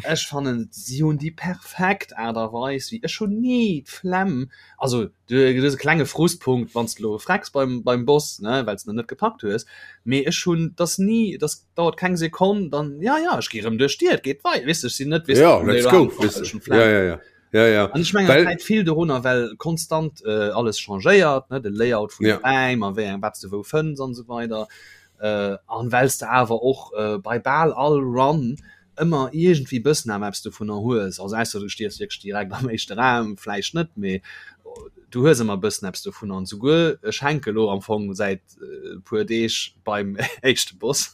ech fannen si hunn déi perfekt Aart a Weis wéi ech hunn ni d'Flemm, also du hues e klenge Frustpunkt wann s de elo frecks beim beim Boss ne well s de en net gepackt hues, mee ech hunn dass ni dass dauert keng Sekonn dann ja ja ech gi rëm duerch d'Dier et geet wei weess de ech sinn net weess ja let's go weess de ja ja ja. Ja, ja. An ech mengen, Well, dat läit vill dorunner, well konstant äh, alles changéiert, ne, de Layout vun ja. de Räim a wéi eng wat s de wou fënns an esou weider. Äh, an well s de awer och äh, bei bal all Run ëmmer iergendwéi bëssen awer eppes dovunner hues. Also ausser du stierfs wierklech direkt am éischte Raum, vläicht net, mee du hues ëmmer bëssen eppes dovunner. An souguer ech hänke lo am Fong säit äh, puer Deeg beim éischte Boss.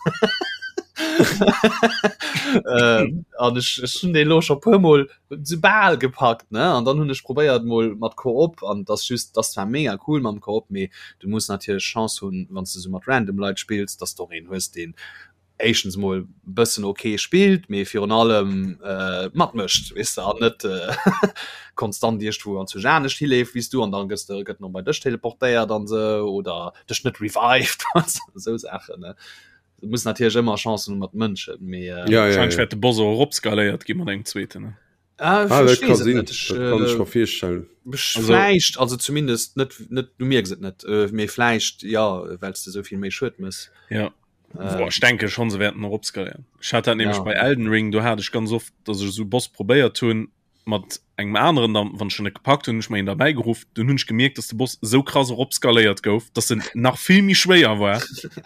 äh, an ech, ech hunn dee lo scho puermol sou bal gepackt ne an dann hunn ech probéiert mol mat Koop an das just das zwar mega cool mam Koop mee du muss natierlech Chance hunn wann s du sou mat random Leit spills dass de och een hues deen éischtens mol bëssen ok spillt mee virun allem äh, matmécht weess de an net äh, konstant iergendwou anzwousch anescht hileeft wéi s du an dann gëss de gëtt en bei dech teleportéiert an sou oder dech net revived sou Saachen ne. Du muss natierlech ëmmer Chancen hu mat Mënschen, mee ja, ja, Wahrscheinlich ja. wäert de Boss och eropskaléiert gi mat engem zweeten. Ne? Ah, Ah, ich dat kann weess et sinn. net. Ech, Dat kann ech äh, mer virstellen. ech Also- vläicht, also zumindest net, net, du mierks et net, äh, mee vläicht, ja, well s de sou vill méi Schued mëss. Ja. Äh, Boah, ech denke schon, se wäerten eropskaléieren. Ech hat dat nämlech Ja. bei Elden Ring, do hat ech ganz oft, dass ech esou Boss probéiert hunn mat engem aneren, dann, wann ech en net gepackt hunn, hunn ech mer een derbäi geruff, dunn hunn ech gemierkt, dass de Boss esou krass eropskaléiert gouf, dass en nach vill méi schwéier war.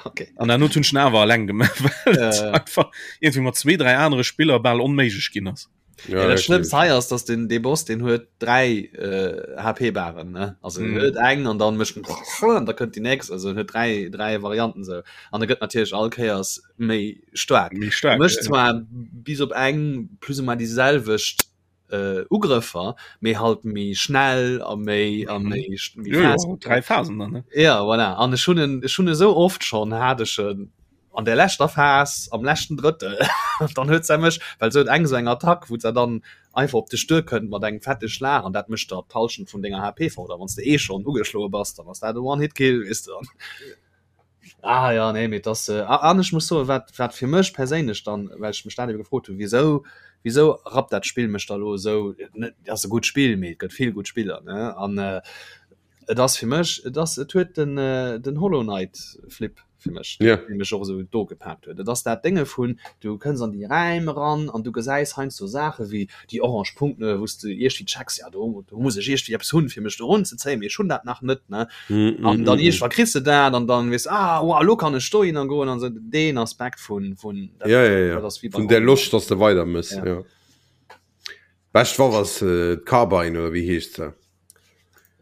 okay. An dann hunn ech en awer alleng gemaach, well et Äh. einfach irgendwie mat zwee, dräi anere Spiller bal onméiglech ginn ass. Ja, dat Schlëmmst hei ass, dass den dee Boss den huet dräi äh, HP-Baren ne also mm. huet eng an dann mécht en da kënnt déi nächst also en huet dräi dräi Varianten sou an e gëtt natierlech all Kéiers méi staark Méi staark, mécht ja. zwar bis op eng plus ou moins déi selwecht äh, Ugrëffer mee halt méi schnell a méi a Mhm. méi méi Jo, jo, fest. dräi Phasen dann, ne? Ja voilà an ech hunn en ech hunn e sou oft schonn hat ech en an der leschter Phas am leschten Drëttel dann huet se mech well se huet eng sou eng Attack wou se dann einfach op dech duerkënnt mat engem fette Schlag an dat mécht der d'Hallschent vun denger HP fort a wann s de eh schonn ugeschloe bass dann ass dat e One-Hit-Kill weess de. Ah ja, nee, mee das äh, an ech muss soen, wat wat fir mech perséinlech dann, well ech mech dat ebe gefrot hunn, wisou wisou rappt dat Spill mech da lo esou, net ass e gutt Spill, mee et gëtt vill gutt Spiller, ne? An äh, et ass fir mech, et ass et huet den äh, den Hollow Knight Flip fir mech, Ja. dee mech och esou do gepaakt huet. Et ass dat Dénge vun, du kënns an déi Räim eran an du gesäis heiansdo Saache wéi déi orange Punkten, wou s de iergwéi checks, ja do do muss ech iergwéi eppes hunn, fir mech do erunzezéien, mee ech hunn dat nach net, ne? Mm, an mm, dann mm, irgendwann kriegst du dat an dann weißt ah wow, lo kann ech dohin an goen an so den Aspekt vun vun dat, ja, ja, ja. dat ass wie vun der Loscht dass du weiter muss Ja. ja. Bescht war was äh, d'Carbine oder wie heescht se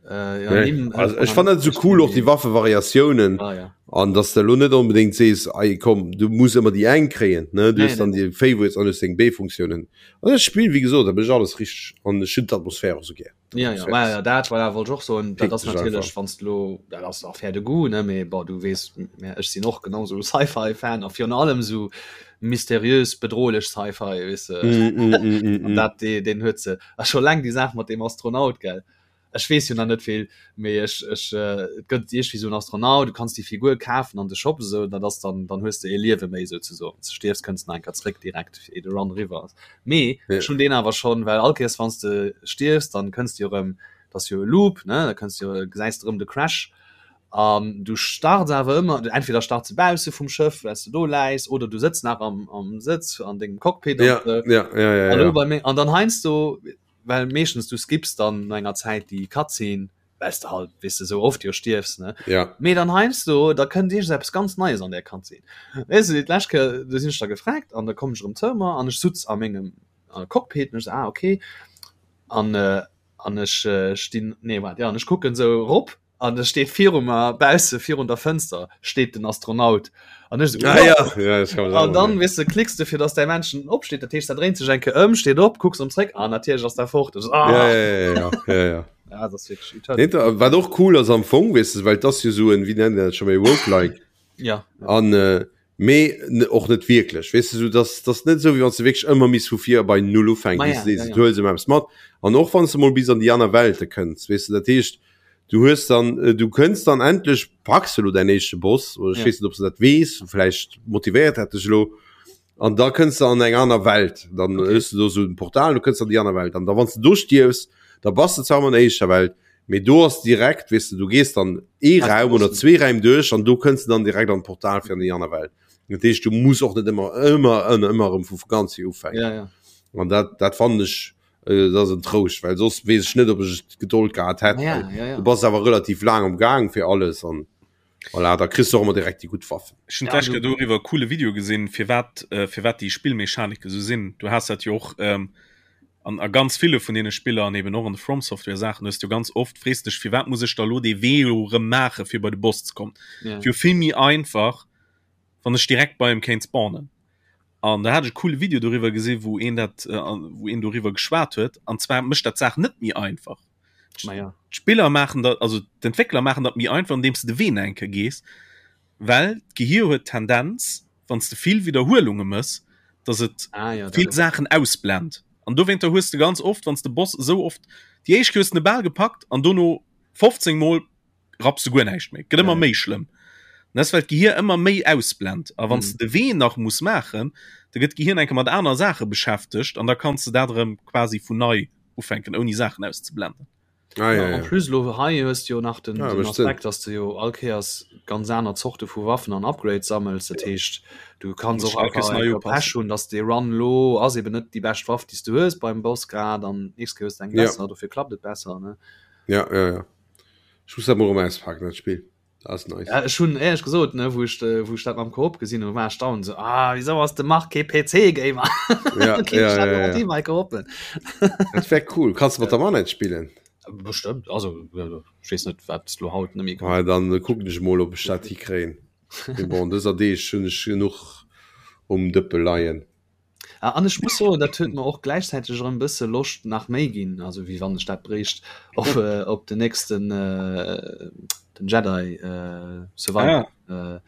äh, ja, Nee. nimm, äh, Also, ech fand dat so cool och die Waffevariatiounen ah, ja. an dass du lo net unbedingt sees ei komm du muss immer die eng kréien ne du Nee, hast dann nee, die Favorites an deng B-Funktionen an das Spiel wie gesot da bin ich alles richtig an ech hunn d'Atmosphär och so gär Ja, ja, ma, ja, dat war wollt och soen, dat ass Pick dech natierlech einfach. wann du lo dat ass Affaire de goût ne mee bon du weess mä ech sinn och genau sou Sci-Fi-Fan a virun allem sou mysteriös bedrohlech Sci-Fi weess de Mm, mm, mm, mm, an mm. dat dee deen huet se a scho laang déi Saach mat deem Astronaut gell ech weess jo nach net vill mee ech ech äh, et gëtt iergendwéi sou en Astronaut du kanns déi Figur kafen an de Shop esou dat ass dann dann hues de ee Liewe méi souzesoen wann s de stierfs kënns de nach eng Kéier zréck direkt fir de Run eriwwer ass Mee Ja. ech hunn deen awer schonn, well all Kéiers wann s de stierfs, dann kënns de jo erëm, dat ass jo e Loop, ne, da kënns de jo, gesäis de erëm de Crash an du starts awer ëmmer, entweder starts de bausse vum Schëff, well s de do läis, oder du sëtz nach am, am Sëtz an dengem Cockpit an Ja, esou. ja, ja, ja, An elo ja. bei mir, an dann heiansdo, well meeschtens du skips dann no enger Zäit déi Cutscene, well s de halt, weess de, sou oft jo stierfs, ne. Ja. Mee dann heiansdo, da kënnt iergends eppes ganz Neies an där Cutscene. Weess de, d'lescht Kéier, do sinn ech da gefragt an da komm ech erëm zou mer an ech sutz a mengem Cockpit an ech sou, ah okay. An, an ech stinn, nee waart, jo, an ech kucken sou erop an da steet viru mer bausse virun der Fënster steet den Astronaut an ech sou, Ah, ja. Ja, das kann man An dann, sagen. weess de, klicks de fir dass däi Männchen opsteet, dat heescht, dat dréint sech eng Kéier ëm, steet op, kucks erëm zréck an natierlech ass dat fort. Ech sou, ah. Ja, ja, ja, ja, ja, ja. Ja, das ist wirklich Eternal. Nee, da, wat och cool ass am Fong, weess de, well das jo so en, wie nennt dat schon méi Roguelike Ja. an äh, mee och net wierklech, weess de, so dass das net sou wéi wann s de wierklech ëmmer misst vu vir bei null ufänken, Ma weess ja, de, ja, du ja. huels ëmmer eppes mat an och wann s de mol bis an déi aner Welte kënns, weess de, dat heescht du hues dann äh, du kënns dann endlech packs de lo däin éischte Boss oder ech Ja. weess net ob s de dat weess, vläicht motivéiert dat dech elo an da kënns de an eng aner Welt, dann Okay. hues du do sou en Portal, du kënns an déi aner Welt an da wann s de do stierfs, da bass de zwar ëmmer an der éischter Welt, mee do ass direkt, weess de, du gees dann ee Hast du Raum oder Bossen. zwee Räim duerch an do kënns de dann direkt an d'Portal fir an déi aner Welt. Dat heescht, du muss och net ëmmer ëmmer ëmmer ëmmer erëm vu ganz vir ufänken. Ja, ja. An dat dat fannen ech äh, dat ass en Trouscht, well soss weess ech net, ob ech d'Gedold gehat hätt, Ja, well ja, ja. du bass awer relativ laang am Gaang fir alles an Voilà, da kriss du och ëmmer direkt déi gutt Waffen. Ech hunn Ja, d'lescht du- Kéier doriwwer e coole Video gesinn, firwat äh, firwat déi Spillmechanike sou sinn. Du has dat jo och ähm, an a ganz ville vun deene Spiller an eben och an de From Software Saachen hues du ganz oft frees dech, firwat muss ech da lo dee Wee elo erëm maache fir bei de Boss ze kommen. Ja. Wier vill méi einfach, wann ech direkt bei em kéint spawnen. An da hat ech e coole Video doriwwer gesinn, wou een dat äh, wou een doriwwer geschwat huet. An zwar mécht dat d'Saach net méi einfach. Ma ja. D'Spiller maachen dat, also d'Entwéckler maachen dat méi einfach, andeems de de Wee nach eng Kéier gees, well d'Gehir huet d'Tendenz, wann s de vill Widderhuelunge mëss, dass et Ah, ja, vill dat- Saachen ausblend. An dowéinter hues de ganz oft, wann s de Boss esou oft, déi éischt Kéier hues de en bal gepackt an dono 15 Mol rapps de guer näischt méi. Gëtt ëmmer Ja. méi schlëmm. An dat ass, well d'Gehir ëmmer méi ausblend. A wann s Mhm. de de Wee nach muss maachen, da gëtt d'Gehir enke mat aner Saache beschäftegt an da kanns de dat erëm quasi vun nei ufänken ouni Saachen auszeblenden. Ah, ja, Ja, en ja. plus lo hei hues du jo nach den, Ja, den mécht Sënn. Aspekt, dass du jo all Kéiers ganz aner Zorte vu Waffen an Upgrades sammels. Dat heescht, du kanns Muss och all Kéiers einfach nei eng upassen. Pech hunn, dass dee Run lo ass eben net déi bescht Waff, déi s du hues beim Boss grad an nächst Kéier hues du eng Ja. besser, dofir klappt et besser, ne? Ja, ja, ja. Ech muss dat mol erëm auspaken, dat Spill. Dat ass nice. Ja, ech hunn éierlech gesot, ne, wou ech, wou ech dat mam Koop gesinn hunn, war ech down so, ah, wieso ass de Marc kee PC-Gamer? Ja, Dann kéint ja, ech dat ja, mat ja. him hei koopen. Dat wär cool. Kanns du mat der Manette spillen? Bestëmmt, also ech weess net, wat s lo haut net méi Ah, dann kucken ech mol, ob ech dat hikréien. Mee bon, dëser Deeg hunn ech genuch um Dëppe leien. Ah, an ech muss soen, dat huet mer och gläichzäiteg erëm e bësse Loscht nach méi ginn, also wéi wann ech dat bréicht, op, äh, op den nächsten äh, den Jedi äh, Survivor. Ah. Äh,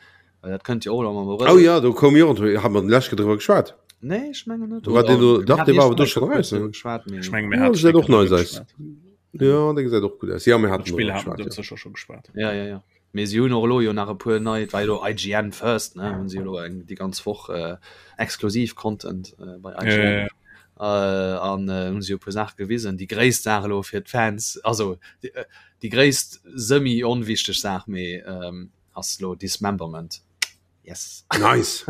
well dat kënnt jo och am Abrëll. Oh ja, do koum jo, hat mer den leschte driwwer geschwat. Nee, ech mengen net. War deen do, dach, dee war awer do schonn eraus, ne? Geschwat, mee Ech menge mir Ja, haten gesäit och nice driwwer aus. geschwat. Ja, dee gesäit och gutt aus. Ja, mir haten D'Spill driwwer haten geschwat, wir ja. sécher scho geschwat. ja, ja, ja. Mee si hunn och elo jo nach e puer nei, et war jo elo IGN First, ne, hunn si elo eng déi ganz Woch äh, exklusiv Content äh, bei IGN. Ja, ja, ja. Äh, an äh, hunn si jo e puer Saache gewisen. Déi gréisst Saach elo fir d'Fans, also déi, äh, déi gréisst semi-onwichteg Saach, mee ähm, ass elo Dismemberment. Yes. Nice.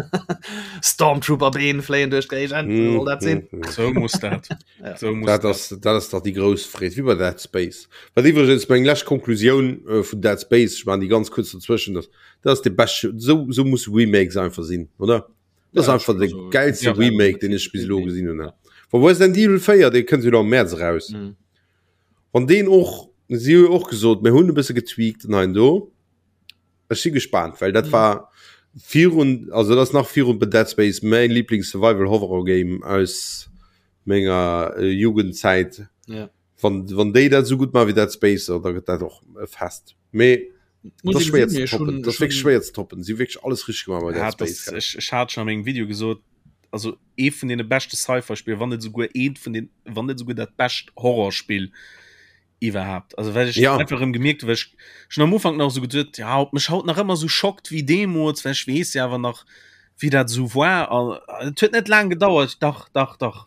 Stormtrooper-Been fléien duerch d'Géigend, mm, soll dat sinn? Mm, so muss dat. ja. so muss dat, ass, dat ass dach déi grouss Freed, wéi bei Dead Space. Wat iwwregens meng lescht Konklusioun äh, vun Dead Space, ech maachen déi ganz kuerz dazwëschen, dass dat ass de beschte, so, so muss Remakes einfach sinn, oder? Das ja, einfach de geilste ja, Remake, den ech bis elo gesinn hunn. Wa Resident Evil 4, dee kënnt jo am März raus. Mm. Wann deen och, si hu jo och gesot, mir hunn e bësse getweakt an hei an do. Ech si gespaant, well dat war virun, also dat ass nach virun Dead Space mäin Lieblings Survival Horror Game aus menger äh, Jugendzäit. Ja. Wann, wann déi dat sou gutt maachen wéi Dead Space, da gëtt dat och e Fest. Mee Muss dat ass ee schwéier gesinn, ze mee ech toppen. hunn- Dat ass ech wierklech hunn- schwéier ze toppen. Si hu wierklech alles richteg gemaach bei Dead Ja, das, Space. gell. ech, ech hat schon an mengem Video gesot, also ee vun deene beschte Sci-Fi-Spiller, wann net souguer eent vun den, wann net souguer dat bescht Horrorspill iwwerhaapt. Also well ech Ja. einfach erëm gemierkt, well ech schon am Ufank nach so geduet, ja, ob mech haut nach ëmmer so schockt wéi deemools, well ech weess ja awer nach, wéi dat so war. An et huet net laang gedauert, dach, dach, dach.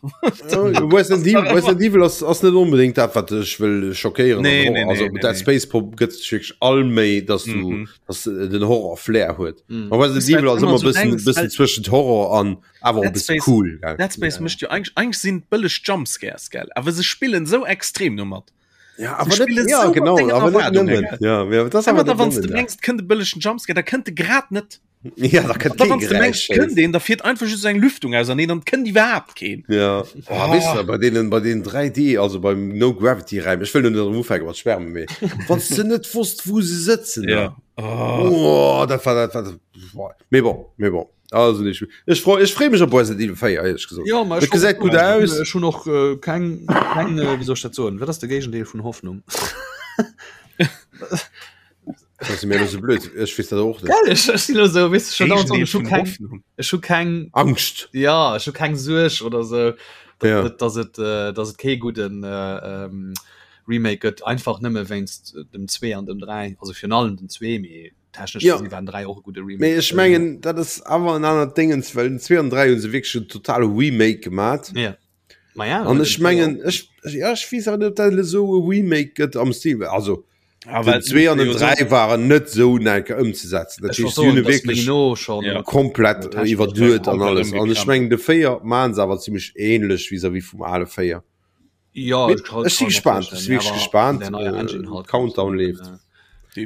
Resident Evil, Resident Evil ass, ass net onbedéngt dat, wat dech wëll schockéieren. Nee, an nee, Horror. Also nee, nee, Dead nee. Space Pop gëtt sech wierklech all Méi, dass du Mhm. dass den Horror Flair huet. Mhm. An Resident Weißt du, Evil ass immer ëmmer so bëssen denkst, bëssen well- zwëschent Horror an awer och Dead bëssen Space- cool. Gell? Dead Space Ja. mécht jo eigentlich, eigentlich sinn bëlleg Jumpscares, gell? Awer se spillen so extrem domat. Ja, Sie aber spillen net, ja, so mat genau, denger aber net Erwaardungen, nëmmen. gell? Ja, ja, das Ëmmer awer da net wann du nëmmen, ja. mengs kënnt e bëllegen Jumpscare, da kënnt e grad net. Ja, da kënnt Da kee wann du mengs Geräisch. kënnt een, da fiert einfach just eng Lüftung auserneen, dann kënnt iwwerhaapt keen. Ja. Oh, weißt du, bei denen, bei den 3D, also beim No Gravity Räim, ech wëll net erëm ufänke mat schwärmen, mee wann du net wosst, wou se sëtzen, ne? Oh. Oh, dat war dat war boah. Mee bon, mee bon. Also nicht. Ech freu, ech free mech op Resident Evil 4, ehrlich gesagt. Ja, ma Et ech gesäit gutt aus. Ech hunn och äh, keng, keng äh, wéi soll ech dat soen, wat ass de Géigendeel vun Hoffnung? Das ass mir so blöd. Ech weess dat och net. Gell, ech, ech sinn elo sou, weess du, schon dauernd so, Géigendeel ech hu vun keng, Hoffnung. ech hu keng, Angscht. ja, ech hu keng Suerg oder sou, dass, Ja. dass et, äh, dass et kee gudden äh, ähm, Remake gëtt, einfach nëmme wéinst dem 2 an dem 3, also virun allem den 2, mee technesch Ja. gesinn waren 3 och e gudde Remake. Mee ech mengen, dat ass awer en anert Dingens, well den 2 an 3 hu se wierklech en totale Remake gemat. Ja. Ma ja, An den ech mengen, ech, ja, ech weess awer net, ob dat esou e Remake gëtt am Stil, also Aber den 2 an den 3 waren net esou enker ëmzesetzen. Dat Ech heescht, wollt si hunn soen, e dass wierklech méi no schon Ja. komplett Technesch iwwerduet an komplett alles. An ech ëmgekrempelt. mengen, de 4 maachen se awer zimmlech ähnlech vis-à-vis vum ale 4. Ja, Mee ich kann- ech si kann mir gespaant, vorstellen, ech si wierklech aber gespaant, der neue äh, Engine halt. Countdown leeft. Äh,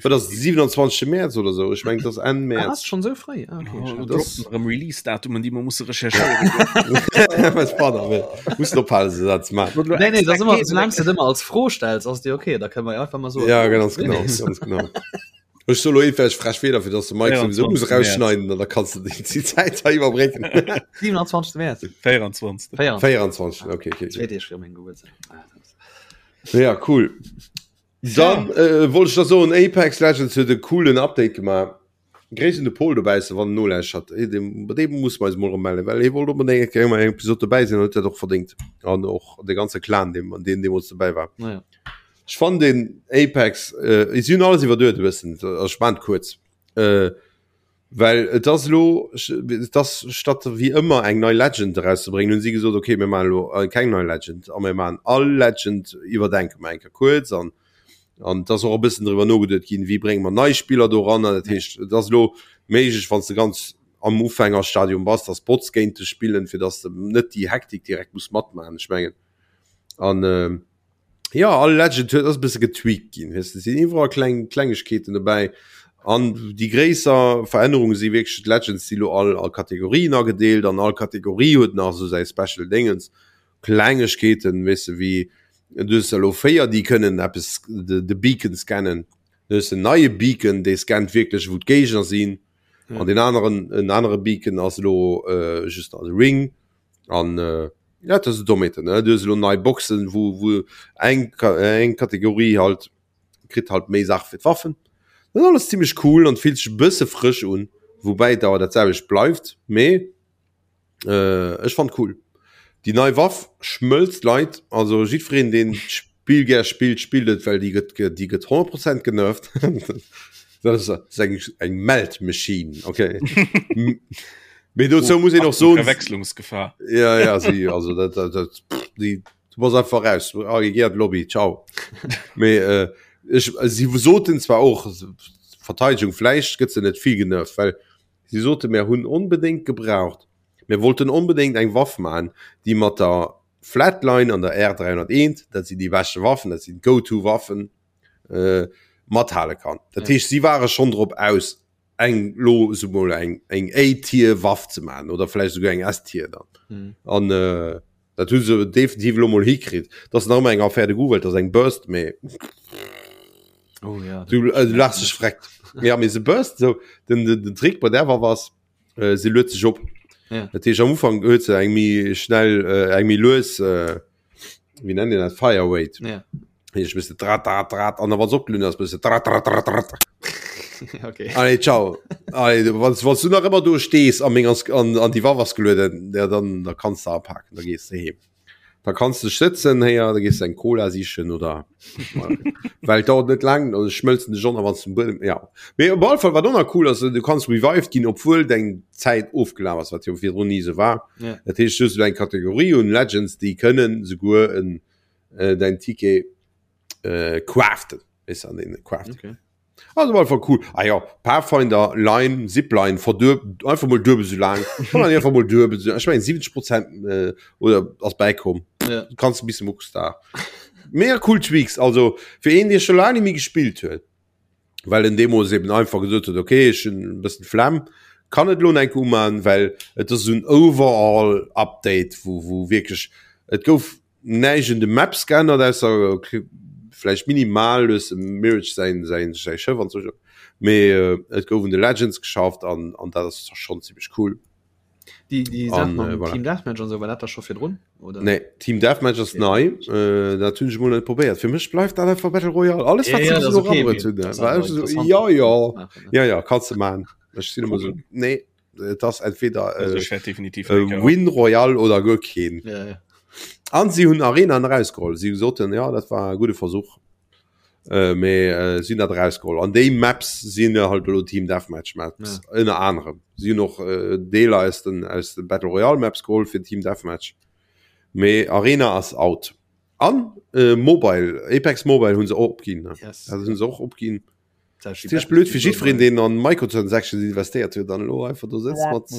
Wat ass 27. März oder sou? Ech mengen, dat ass Enn Ah, März. ass schon sou fréi? Ah, okay, Oh, schade. das- droppen erëm Release-Datumen, déi mer musse recherchéieren. Was pardon, nee. Muss ophalen, se dat ze maachen. Nee, nee, das ist immer, solange du das immer als Fro stellst, ass dir okay, da können wir ja einfach mal so. Ja, ganz genau, ganz genau. Ech soll elo eefäch frech Wieder fir dass de Mike sowieso muss 24. rausschneiden an da kannst du déi déi Zäit hei iwwerbrécken. 27. März. 24. 24. 24, okay, okay. Zwei Deeg fir meng Geburtstag. Ah, das- Ja, cool. Dann äh, wollt ech da soen, Apex Legends huet e coolen Update gemaach. Gréiss un de Paul dobausse wann en nolauschtert. Eh, deem, bei deem muss mer eis mol erëm mellen, well hie wollt onbedéngt eng Kéier eng Episode dobäi sinn an huet dat och verdéngt. An och de ganze Clan, deem, an deen deemools dobäi war. Naja. Ech fannen den Apex, äh, si hunn alles iwwerduet e bëssen, also ech maan et kuerz. Äh, well et ass elo, et ass statt wéi ëmmer eng nei Legend erauszebréngen, hunn si gesot, okay, mir maachen elo keng nei Legend a mir maachen all Legend iwwerdenke mer eng Kéier kuerz an an et ass och e bëssen driwwer nogeduet ginn, wéi brénge mer nei Spiller doranner. Dat heescht, et ass elo méiglech, wann s de ganz am Ufängerstadium bass, dass Bots géint dech spillen, fir dass de net déi Hektik direkt muss matmaachen. Ech mengen an äh, ja all Legend huet ass e bësse getweakt ginn weess de, sinn iwwerall kleng Klengegkeeten dobäi an déi gréisser Verännerunge si wierklech d'Legends si lo all a Kategorien agedeelt an all Kategorie huet nach esou säi Special Déngens Klengegkeeten weess de wéi du hues elo 4 déi kënnen eppes de de Beacon scannen du hues en neie Beacon dee scannt wierklech wou d'Géigner sinn an deen aneren en anere Beacon ass elo äh, just als Ring An ja, dat ass Dommheeten, ne? Du hues elo nei Boxen, wou, wou eng, eng Kategorie halt kritt halt méi Saache fir d'Waffen. Dat ass alles zimmlech cool an fillt sech e bësse frësch un, woubäi et awer dat selwecht bleift, mee äh, ech fand cool. Déi nei Waff schmëlzt Leit, also jiddwereen, deen d'Spill gär spillt, spillt et, well déi gëtt, déi gëtt 100 Prozent genervt. Dat ass eng, eng Melt Machine, okay. Mee dozou muss een och soen. Verwechslungsgefahr. Ja, ja, si, also dat, dat, dat, pff, déi, du bass einfach raus. Ah, geh an d'Lobby, ciao. Mee äh, ech, si soten zwar och, Verteidigung, vläicht gëtt se net vill genervt, well si sote mir hunn onbedéngt gebraucht, mir wollten onbedéngt eng Waff man, déi mat der Flatline an der R301, dat sinn déi beschte Waffen, dat sinn d'Go-to-Waffen, äh, mathale kann. Dat heescht, si ware schonn drop aus, eng lo sou mol eng eng A-Tier-Waff ze maachen oder vläicht souguer eng S-Tier dann. Mhm. An äh, dat hu se definitiv lo mol hikritt. Dat ass nach ëmmer eng Affaire de goût, well dat ass eng Burst, mee Oh ja. du, äh, du lachs dech freckt. Ja, mee se burst sou. Den, den, den Trick bei där Waff ass, äh, se luet sech op. Ja. Dat heescht, am Ufank huet se eng méi schnell, äh, eng méi lues äh, wéi nennt een dat Fire Rate. Ja. Ech bist drat drat drat an der was opgelun ass bist drat drat drat drat. Okay. Allez, ciao. Allez, wann wann du nach ëmmer do stees an meng an, an die Waff ass gelueden, ja, dann da kannst du apaken, da gees du heem. Da kannst du sëtzen héier, da gees du eng Cola sichen oder well dauert net lang, also schmëlzen de John wann zum Buedem ja. Mee op alle Fall wat och nach cool ass, du kanns revived ginn, obwuel deng Zäit ofgelaf ass, wat jo virdrun ni esou war. Ja. Dat heescht, du hues elo eng Kategorie un Legends, déi kënnen souguer en äh, däin Ticket äh, craften. Weess an den craften. Okay. Also war einfach cool. Ah ja, Pathfinder, Line, Zipline, verdueb, einfach mol duebel so lang. Kann man einfach mol duebel so. Ich mein 70 Prozent äh, oder ass bäikomm. Ja. Du kannst e bisschen mucks da. Mega cool Tweaks, also fir een, dee scho laang net méi gespillt huet, well en deemools eben einfach gesot huet, okay, ech hunn e bëssen d'Flemm, kann et elo enk uman, well et ass esou en Overall Update, wou wou wierklech et gouf näischt un de Maps geännert, ausser vläicht minimal hues dem Mirage säin säin säi Schëff an sou, mee et gouf un de Legends geschafft an an dat ass schonn zimmlech cool. Déi, déi Saach An, mam äh, voilà. Team Deathmatch an sou, war dat da scho virdrun? Oder? Nee, Team Deathmatch ass Okay. nei, äh, dat hunn ech mol net probéiert. Fir mech bleift dat einfach Battle Royale. Alles Ja, wat se ja, bis dat ass elo okay, erabruet mee hunn, dat ass war awer ech so, interessant, ja, dat ja, ze maachen, ne? ja, ja, kanns de maachen. Ech sinn ëmmer so, nee, et ass entweder Also äh, ech wäert definitiv äh, eng Kéier Win Royale oder guer keen. Ja, ja. An si hunn Arena erausgeholl. Si soten, ja, dat war e gudde Versuch. Äh, mee äh, sinn dat erausgeholl. An déi Maps sinn halt elo Team Deathmatch Maps Ja. ënner anerem. Si hunn och äh, Deeler aus den, aus den Battle Royale Maps geholl fir Team Deathmatch. Mee Arena ass out. An äh, Mobile, Apex Mobile hunn se och opginn. Ne? Yes. Also hunn se och opginn. Dat ist Ziemlich blöd fir jiddwereen, deen an Microtransactions investéiert huet an elo einfach do sëtzt mat.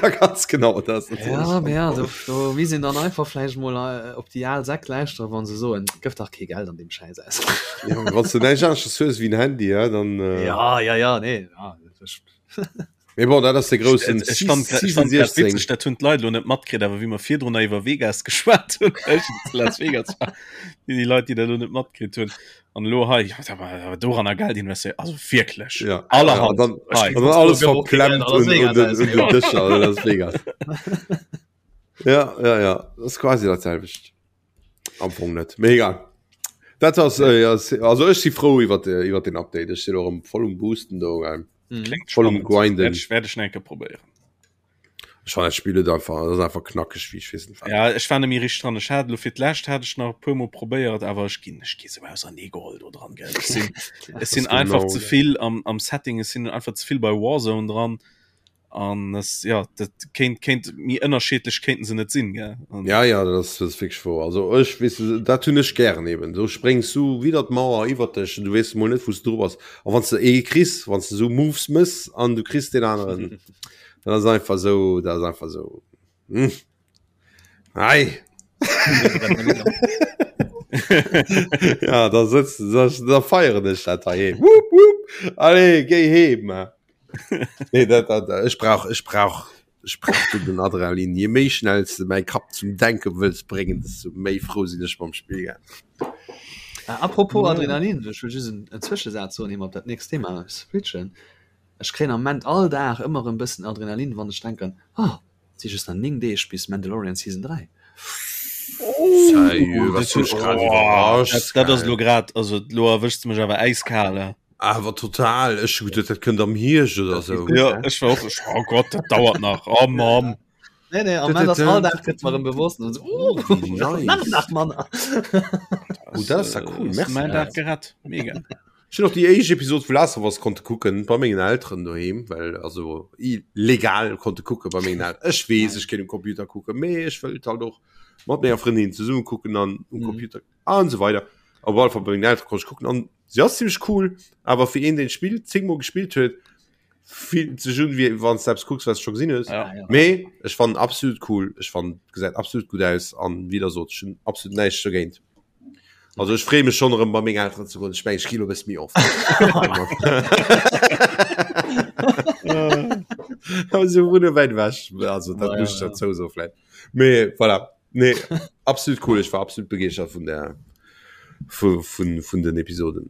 Ja, ganz genau dat ass natierlech Ja, mee ja, do, do misst een dann einfach vläicht mol äh, op déi al Säck lauschteren, wann se soen, gëff dach kee Geld an deem Schäiss aus. Ja, wann s du näischt aneschters hues wéi en Handy, ja, dann. Äh, Ja, ja, ja, nee, ja, das, Mee bon, dat ass de groussen Ech fand grad- ech fand grad witzeg, dat hunn d'Leit lo net matkritt, awer wéi mer virdrun nach iwwer Vegas geschwat hunn, ech zu Las Vegas war, déi Leit, déi dat lo net matkritt hunn. An elo hei, ja, da war awer doranner Geld investéiert, also wierklech. Ja. Allerhand. Ja, dann, Hei. an dann alles Gëff och kee Geld verklemmt an Las un, un Vegas den, aus. un den Dëscher an Las Vegas. Ja, ja, ja, dat ass quasi dat selwecht. Am Fong net, mee egal. Dat ass, äh, ja, also ech si frou iwwer iwwer den Update. Ech sinn och erëm voll um Boosten do. Ähm. Mhm. Klingt Voll um spannend. Grinden. Werd ich, werd ich enke probéieren. Ech fand dat Spill et einfach, dat ass einfach knackeg wéi ech weess net wat. Ja, ech war nemmi richteg dran. Ech hat lo fir d'lescht hat ech nach e puer Mol probéiert, awer ech ginn ech gi sou ausernee geholl do dran, gell. Ech sinn ech sinn Das einfach genau, ze ja. vill am, am Setting, ech sinn einfach ze vill bei Warzone dran. An es, ja, dat kéint, kéint méi ënnerscheedlech kéinten se net sinn, gell. An, Ja, ja, dat ass, dat ass wierklech wouer. Also ech, weess de, dat hunn ech gären eben. Do spréngs du widder d'Mauer iwwer dech an du weess mol net, wou s du dru bass. A wann s de ee kriss, wann s de esou Moves mëss an du kriss deen aneren, dat ass einfach esou, dat ass einfach esou, hm. Ei. Ja, da sëtzt, da, da feieren ech dat heiheem. Wupp, wupp, allez, géi heem. Nee, dat, dat, ech brauch, ech brauch, ech brauch du den Adrenalin. Je méi schnell s de mäi Kapp zum Denke wëlls bréngen, desto méi frou sinn ech mam Spill. Gell? Ah, apropos Adrenalin, ech wëll just en, en Zwëschesaz soen, ier mer op dat nächst Thema switchen. Ech kréien am Moment all Dag ëmmer erëm bëssen Adrenalin, wann ech denken, oh, et si just nach 9 Deeg bis Mandalorian Season 3. Sérieux, was hues grad iwwerrascht, dat, dat ass gell? lo grad, also lo erwëschs de mech awer äiskal, eh. Awer total, ech hu geduet, dat kënnt am Hierscht oder Dat geet sou. gutt, Ja, ne? ech war och, ech, oh Gott, dat dauert nach, oh Mann. Nee, nee, am Moment ass all Dag gëtt mer erëm bewosst und so, oh, Wéi nach nice. nach manner. Oh, dat ass ja cool, Ass merci. Mäin Dag gerett, mega. Ech hunn och déi éischt Episod vu Last of Us konnte kucken bei mengen Elteren doheem, well also legal konnte kucke bei mengen Elteren. Ech weess, ech kéint um Computer kucken, mee ech wëllt halt och mat menger Frëndin zesumme kucken an um mhm. Computer an so weiter. Op alle Fall bei mengen Elteren konnt ech kucken an si ass ziemlich cool, awer fir een den Spill zéngmol gespillt huet, fillt sech un wéi wann du eppes kucks wat du scho gesinn hues. Ja, ja. Mee ech fannen absolut cool, ech fannen gesäit absolut gutt aus an wéi der sot, ech hunn absolut näischt dogéint. Also ech freeë mech schonn erëm bei meng Elteren ze goen. Ech mengen ech gi lo e bësse méi oft. Also wunne wäit ewech, also dat muss ech dozou soen vläicht. Mee voilà, nee absolut cool, ech war absolut begeeschtert vun der vu vun vun den Episoden.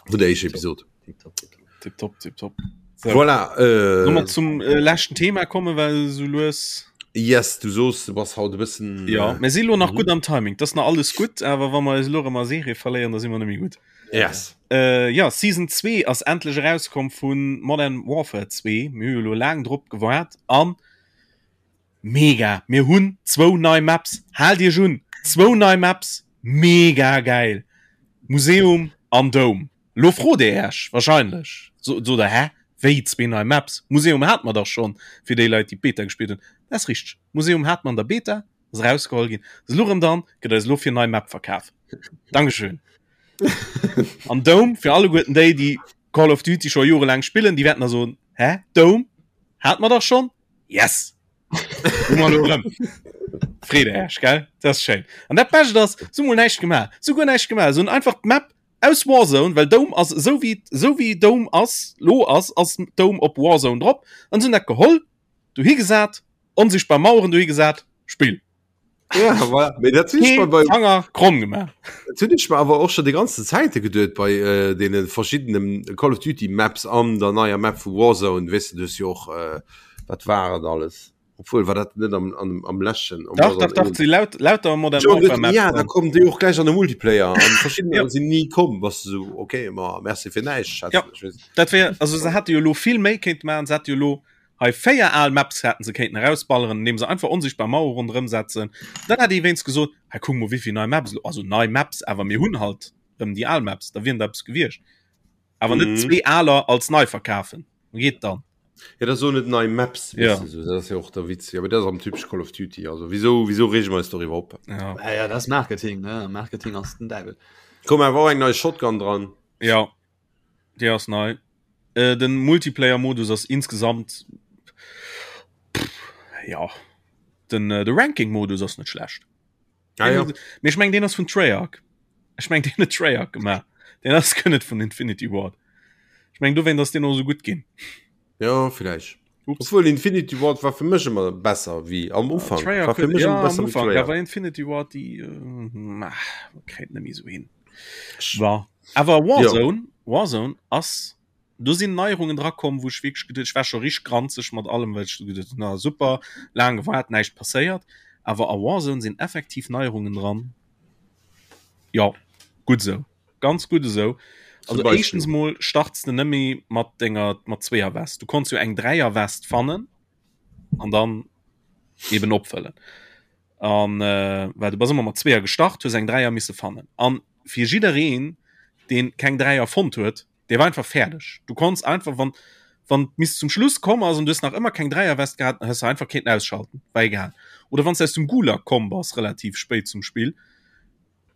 Vun der éischter Episod. Tipptopp, tipptopp. Tipptopp. So. Voilà, äh, Soll mer zum äh, leschten Thema kommen, well so lues. Yes, du soos, du bass haut e bëssen. Ja, mir si lo nach mhm. gutt am Timing. Das nach alles gutt, awer wa mer eis lo ëmmer Serie verléieren, da si mer net méi gutt. Yes. Äh, ja, Season 2 ass endlech erauskomm vun Modern Warfare 2. Mir hu jo lo laang drop gewaart an Mega! Mir hunn zwou nei Maps, haalt iech un, zwou nei Maps, mega gäil! Museum an Dome. Lo frot dir iech wahrscheinlech, sot der, hä, wéi zwee nei Maps? Museum hate mer dach schonn, fir déi Leit, déi d'Beta gespillt hunn. Dat ass richteg, Museum hate mer an der Beta, ass erausgeholl ginn, ass elo erëm dran, gëtt eis elo fir nei Map verkaf. Dankeschön! An Dome, fir alleguerten déi, déi Call of Duty scho jorelaang spillen, déi wäerten da soen, hä, Dome hate mer dach schonn? Yes! Freet Iech, gell? Dat ass schéin. An dat Bescht ass, se hu mol näischt gemaach. Se hu guer näischt gemaach. Se hunn einfach d'Map aus Warzone, well Dome ass esou wéi, esou wéi Dome ass, lo ass, ass Dome op Warzone drop. An se hunn dat geholl, dohi gesat, onsichtbar Maueren dohi gesat, Spill. Ja, voilà. Mee dat hunn ech mer bei Fanger kromm gemaach. Dat hunn ech mer awer och schon déi ganze Zäite geduet bei äh, deene verschiddenen Call of Duty Maps an der neier Map vu Warzone, weess de, du hues jo och äh, wat war et alles? Obwuel war dat net am, am, am leschten am Dach, dach, dach, si laut, lauter Modern Jo, Warfare Maps ja, da kommen déi och gläich an de Multiplayer an verschiddener Ja. sinn ni komm, bass du sou okay, ma merci fir näischt, schätzen Ja. ech, weess. Dat wär, also se hätte jo lo vill méi kéinte maachen, se hätte jo lo Hei 4 al Maps hätten se kéinten erausballeren, indeem se einfach onsichtbar Mauere ronderëm setzen. Dann hätt ee wéinst gesot, hei kuck mol wéivill nei Maps elo, also nei Maps, awer mir hunn halt erëm déi al Maps, da wieren der eppes gewiescht. Awer net mhm. zwee aler als nei verkafen. Geet dann. Ja, dat so net nei Maps ja. So, dat ass ja och der Witz. Ja, dat am typisch Call of Duty. Also wieso wieso rege mer eis doriwwer op? Ja. Ja, ja, das Marketing ne? Marketing ass den Däiwel. Komm awer och eng nei Shotgun dran. Ja. Déi ass nei. Äh, den Multiplayer-Modus ass insgesamt pff, ja den äh, de Ranking-Modus ass net schlecht. Ah, ja. Mee ech meng den ass vun Treyarch. Ech meng den huet Treyarch gemaach. Den ass guer net vun Infinity Ward. Ech meng dowéint ass den och sou gutt ginn. Ja, vielleicht. Ups. Obwohl Infinity Ward war fir mech ëmmer besser wéi am Ufank. Treyarch War fir mech ja, ëmmer am besser wéi Ufank, Treyarch. awer Infinity Ward déi äh, ah, kréit net méi sou hin. War. Awer Warzone, ja. Warzone ass do sinn Neierungen dra komm, wou ech wierklech geduet, ech war scho richteg granzeg mat allem, well ech geduet hunn, na super, laang gewaart, näischt passéiert. Awer a Warzone sinn effektiv Neierungen dran. Ja, gutt esou. Ganz gutt esou. Also éischtens mol starts de net méi mat denger mat zweeër West. Du konns jo eng Dräier West fannen an dann eben opfëllen. An äh, well du bass ëmmer mat zweeër gestart, hues eng Dräier misse fannen. An fir jiddereen, deen keng Dräier fonnt huet, dee war einfach fäerdeg. Du konns einfach, wann wann bis zum Schluss komm ass an du hues nach ëmmer keng Dräierwest gehat, dann hues du einfach kéinten ausschalten, war egal. Oder wann s du aus dem Gulag komm bass, relativ spéit zum Spill,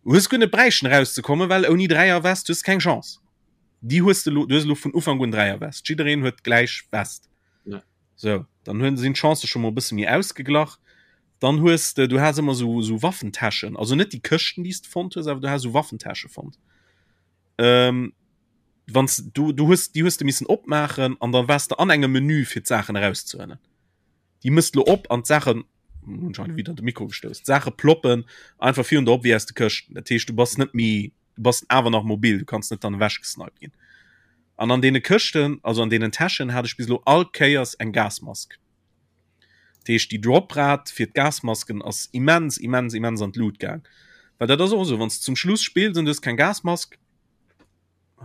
hues guer net bräichten erauszekommen, well ouni Dräierwest hues du keng Chance. Déi hues de lo, du hues elo vun Ufank un Dräierwest. Jiddereen huet d'gläich West. Ja. Sou, dann hunn sinn d'Chancë scho mol e bësse méi ausgeglach. Dann hues de, du has ëmmer sou sou Waffentäschen, also net déi Këschten, déi s de fonnt hues, awer du has sou Waffentäsche fonnt. Ähm, wann s du du hues déi hues de missen opmaachen an dann waars de an engem Menü fir d'Saachen erauszehuelen. Déi mëss lo op an d'Saachen hunn ech hei widder de Mikro gestouss, d'Saache ploppen einfach virun der op wéi aus de Këschten. Dat heescht, du bass net méi, du bass awer nach mobil, du kanns net dann ewechgesniped ginn. An an deene Këschten, also an deenen Täschen hat ech bis elo all Kéiers eng Gasmask. Dat heescht, déi Droprate fir d'Gasmasken ass immens, immens, immens an d'Lut gaang. Well dat ass och esou, wann s de zum Schluss spills an du hues keng Gasmask,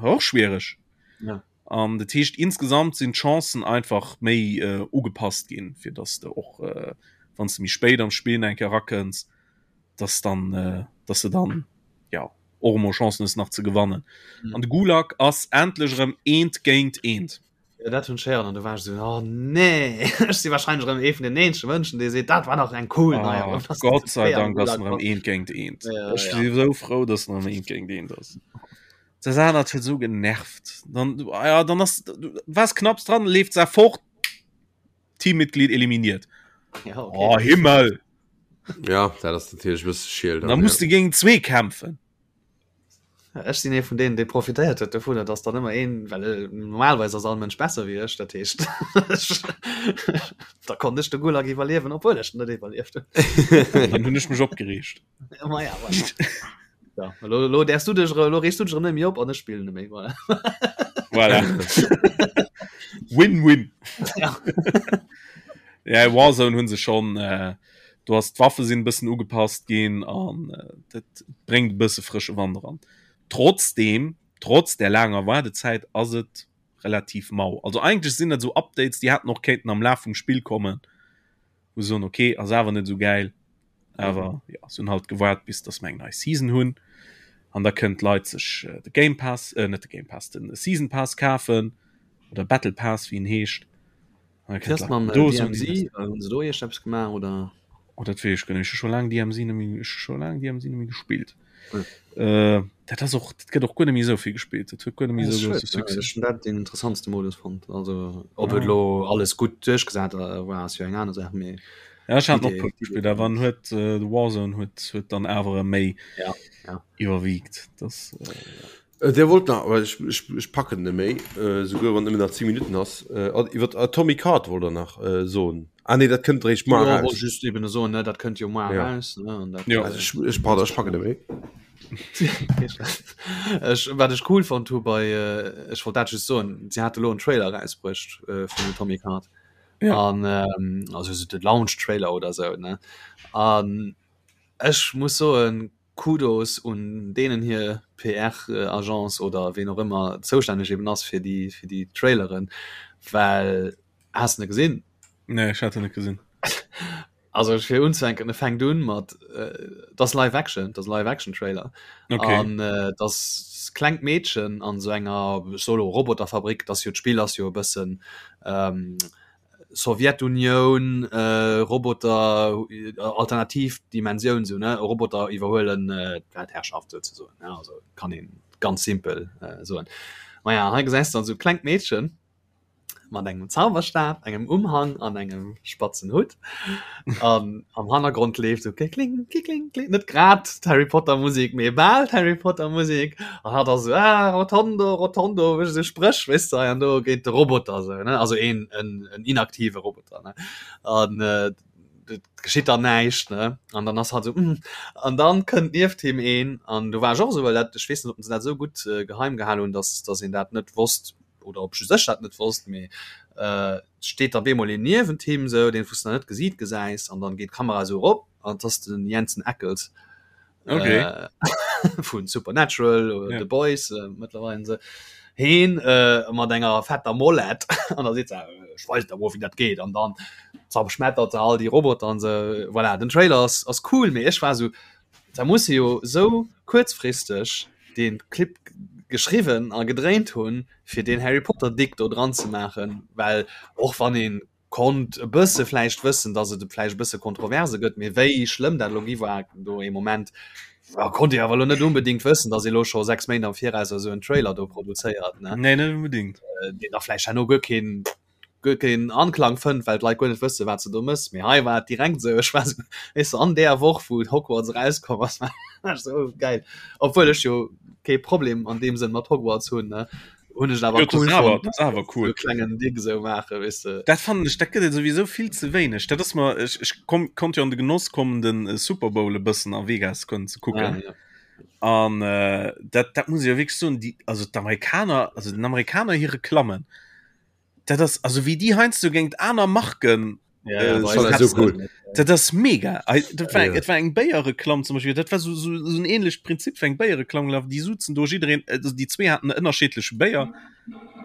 och schwiereg. Ja. An dat heescht, insgesamt sinn d'Chancen einfach méi äh, ugepasst ginn, fir dass de och, äh, wann s de méi spéit am Spill eng Kéier erakënns, dass dann, äh, dass de dann, ja. och emol Chancen hues nach ze gewannen. Mhm. An de Gulag ass endlech erëm eent géint eent. Ja, dat hunn ech héieren an du war ech esou, oh nee, ech si wahrscheinlech erëm ee vun den eenzege Mënschen, dee seet, dat war nach eng cool oh, Neierung. Gott sei Dank ass en erëm eent géint eent. Ja, ech ja. si sou frou, dass en erëm eent géint eent ass. Dat anert huet sou genervt. Dann, ja, dann ass, du waars knapps dran, leeft se fort, Teammitglied eliminiert. Ja, okay. Oh, Himmel! Ja, dat ass natierlech e bësse schiel. Da musst du géint zwee kämpfen. Ech sinn ee vun deenen, dee profitéiert huet dovunner, dass dann ëmmer een, well äh, normalerweis ass all Mënsch besser wéi ech, dat heescht da konnt ech de Gulag iwwerliewen, obwuel ech net iwwerlieft hunn. Dann hunn ech mech opgereegt. Ma ja, voilà. Ja, lo, lo däerfs du dech, lo reegst du dech erëm net méi op an ech spillen net méi. Voilà. Voilà. Win-win. Ja. Ja, Warzone hunn se schon äh, do ass d'Waffe sinn bëssen ugepasst ginn an äh, dat bréngt e bësse frësche Wand eran. Trotzdem, trotz der laanger Waardezäit ass et relativ mau. Also eigentlech sinn dat sou Updates, déi hätten och kéinten am Laf vum Spill kommen, wou se soen, okay, ass awer net sou gäil. Awer ja, se hunn halt gewaart, bis dass mer eng nei Season hunn. An da kënnen d'Leit sech äh, de Game Pass, äh, net de Game Pass, den Season Pass kafen oder Battle Pass, wéi en heescht. Wéi mam DMZ? Hunn se do iergendeppes gemaach oder? Oh, dat weess ech guer net. Ech hu scho laang DMZ net méi, ech hu scho laang DMZ net méi gespillt. Äh, dat ass och, dat gëtt och guer net méi esou vill gespillt. Dat huet guer net méi esou grousse Succès. Ech hunn dat deen interessantste Modus fonnt. Also ob et elo alles gutt duerchgesat war, ass jo eng aner Saach, mee. Ja, ech hat och puer gespillt, awer en huet de Warzone huet huet dann awer méi ja, ja. iwwerwiegt. Das, äh, ja. Äh, der wollt nach, well ech, ech, ech packen net méi, äh, souguer wann nëmmen nach 10 Minuten ass. Äh, iwwer Atomic Heart wollt der nach äh, soen. Ah nee, dat kënnt eréischt muar ja, raus. Just eben soen, ne, dat kënnt jo muar ja. raus. Ne, an dat, ja. Also, ech, ech, pardon, ech packen net méi. ech, wat ech cool fand hu bei äh, ech wollt dat just soen, sie hat elo en Trailer rausbruecht äh, vun Atomic Heart. Ja. An ähm, also so de Launch Trailer oder so ne. An ech muss soen, Kudos un deenen hir PR-Agence oder ween och ëmmer zoustänneg eben ass fir déi fir déi Traileren, well has de gesinn? Nee, ech hat en net gesinn. Also fir unzefänken, e fänkt un mat et ass Live Action, et ass e Live Action Trailer okay. an et ass klengt Meedchen an esou enger ech soe lo Roboterfabrik, et ass jo d'Spill ass jo e bëssen Sowjetunioun, Roboter, alternativ Dimensioun sou ne, Roboter iwwerhuelen d'Weltherrschaft souzesoen, ne, also kann een ganz simpel soen. Maja, hei gesäis de dann sou klengt Meedchen mat engem Zauberstab, engem Umhang an engem spatzen Hutt an am Hannergrond leeft sou klikling, klikling, kling, net grad d'Harry Potter Musek, mee bal d'Harry Potter Musek an hatt ass sou, ah Rotondo, Rotondo, mécht esou Spréch, weess de, hei an do géint de Roboter sou, ne, also een, en, en inaktive Roboter, ne, an et geschitt dann näischt, ne, an dann ass hatt sou, hm, an dann kënnt nieft him een an do war ech och esou, well dat, ech weess net, ob se dat esou gutt geheim gehal hunn, dass, dass een dat net wosst oder ob just ech dat net wosst, mee et steet da bemol een niewent him sou, deen wou s de nach net gesiit gesäis an dann geet d'Kamera esou erop an et ass den Jensen Ackles. okay. äh, vun Supernatural oder ja. The Boys äh, mittlerweile se heen äh, mat enger fetter Mollet an da seet se äh, ich weiß da wo wie dat geht an dann zerschmettert se all die Roboter an se voilà den Trailer ass, ass cool mee ech war so da muss se jo so kuerzfristeg den Clip geschriwwen a gedréint hunn fir den Harry Potter Dick do dran ze maachen well och wann een konnt e bësse vläicht wëssen, datt et vläicht e bësse Kontroverse gëtt, mee wéi schlëmm dat elo gi war do ee Moment, ja, konnt ee awer elo net unbedéngt wëssen, datt ee elo scho 6 Méint am Viraus esou en Trailer do produzéiert, ne? Nee, net unbedéngt. Deen da vläicht herno guer keen, guer keen Anklang fënnt, well d'Leit guer net wësse wat se do mëss. Mee hei war et direkt esou, ech war esou, weess de, an där Woch wou Hogwarts erauskomm ass, war ech esou, oh geil. Obwuel ech jo kee Problem an deem Sënn mat Hogwarts hunn, ne? hunn ech awer cool awer, das awer cool so klengen Ding so maache weißt du. Dat fand ech dat gëtt sowieso vill ze wéineg. Dat ass mer ech, ech komm, konnt jo an de Genoss kommen den äh, Super Bowl e bëssen a Vegas kënnen ze kucken. Ah, ja. An äh, dat, dat muss ich jo wierklech soen, déi, also d'Amerikaner, also den Amerikaner hir Reklammen, dat ass also wéi déi heiansdo géint aner Marken Ja, ja, äh, bei so eis so cool. net. Dat ass mega. Ei, Dat war, Ja. Et war eng Béierreklamm zum Beispiel. Dat war so, so, so en ähnlecht Prinzip wéi eng Béierreklamm gelaf. Déi suzen do jiddereen, also déi zwee haten ënnerschiedleche Béier.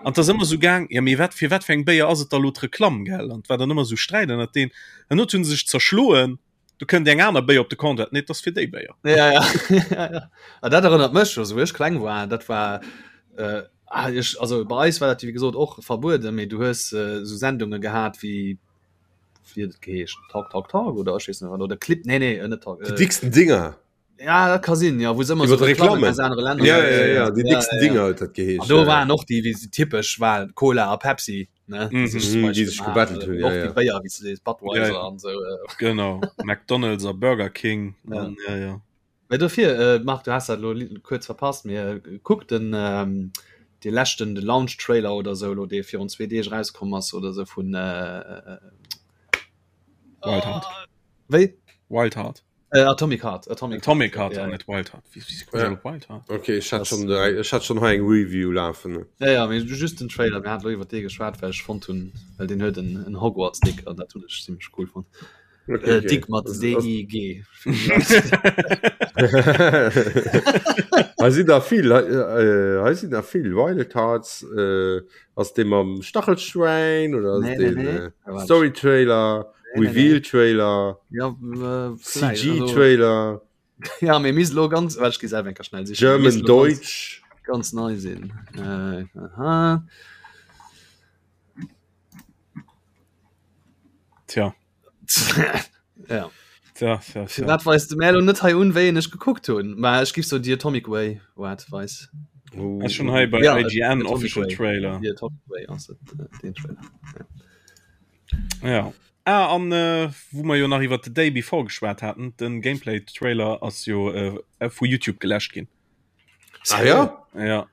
An 't ass ëmmer sou gaang, ja mee wat fir wat fir eng Béier ass et da lo d'Reklamm, gell? An 't war dann ëmmer sou Sträit ënnert deen. An not hunn se sech zerschloen. Du kënnt eng aner Béier op de Comptoir, nee, dat ass fir déi Béier. Ja, ja. ja, ja. Ah, dat erënnert mech, also wou ech kleng war, dat war äh, ah, ech, also bei eis war dat wéi gesot och verbueden, mee du hues äh, sou Sendunge gehat wéi wéi huet et geheescht, Talk Talk Talk oder ech weess net wat oder Clip, nee nee, net Talk. Äh, Déi dicksten Dinger. Ja, dat ka sinn, ja, wou se ëmmer so Reklammen aus anere Länner. Ja, ja, ja, déi dicksten Dinger huet dat geheescht. An do waren och déi, wéi se typesch war, Cola a Pepsi, ne, déi sech zum Beispill déi sech gebattelt hunn, ja, ja. Och déi Béier, wéi s de sees, Budweiser an esou. Genau, McDonald's a Burger King an ja, ja. Mä dofir, Marc, du has dat elo kuerz verpasst, mee kuck den, dee leschten, de Launch Trailer oder esou elo, dee virun zwee Deeg erauskomm ass oder esou vun Wild Heart. Wéi? Wild Heart. Äh, Atomic Heart. Atomic, Atomic Heart, ja, net Wild Heart. Wie, wie ja. Wild Heart? Okay, ich hatte schon, ich hatte schon hei eng Review lafen. Ja, ja, mee just den Trailer, mir haten iwwer dee geschwat, well ech fonnt hunn, well den huet en, en Hogwarts-Dick an dat hunn ech zimmlech cool fonnt. Okay, äh, okay. Dick mat D-I-G. Hei sinn der vill, hei, äh, hei sinn der vill Wild Hearts, äh, ass dee mam Stachelschwein oder ass nee, den nee, nee. Äh, Story Trailer? Reveal Trailer, ja, äh, CG Trailer. Ja, mir mis lo ganz well ich selber enker schnell sichen. German Deutsch ganz, ganz nei sinn. Äh, aha. Tja. ja. Tja, tja, tja. Dat weist de Melo net hei un wéi ech gekuckt hunn. Ma ech gif so Dir Atomic Way wat weis. Oh. Schon hei bei ja, IGN Official Way. Trailer. The Atomic Way ass et, äh, den Trailer. Ja. Ja. Ah, an äh, wou mer jo nach iwwer The Day Before geschwat haten, den Gameplay-Trailer ass jo äh, vu YouTube geläscht ginn. Ah ja? Ja.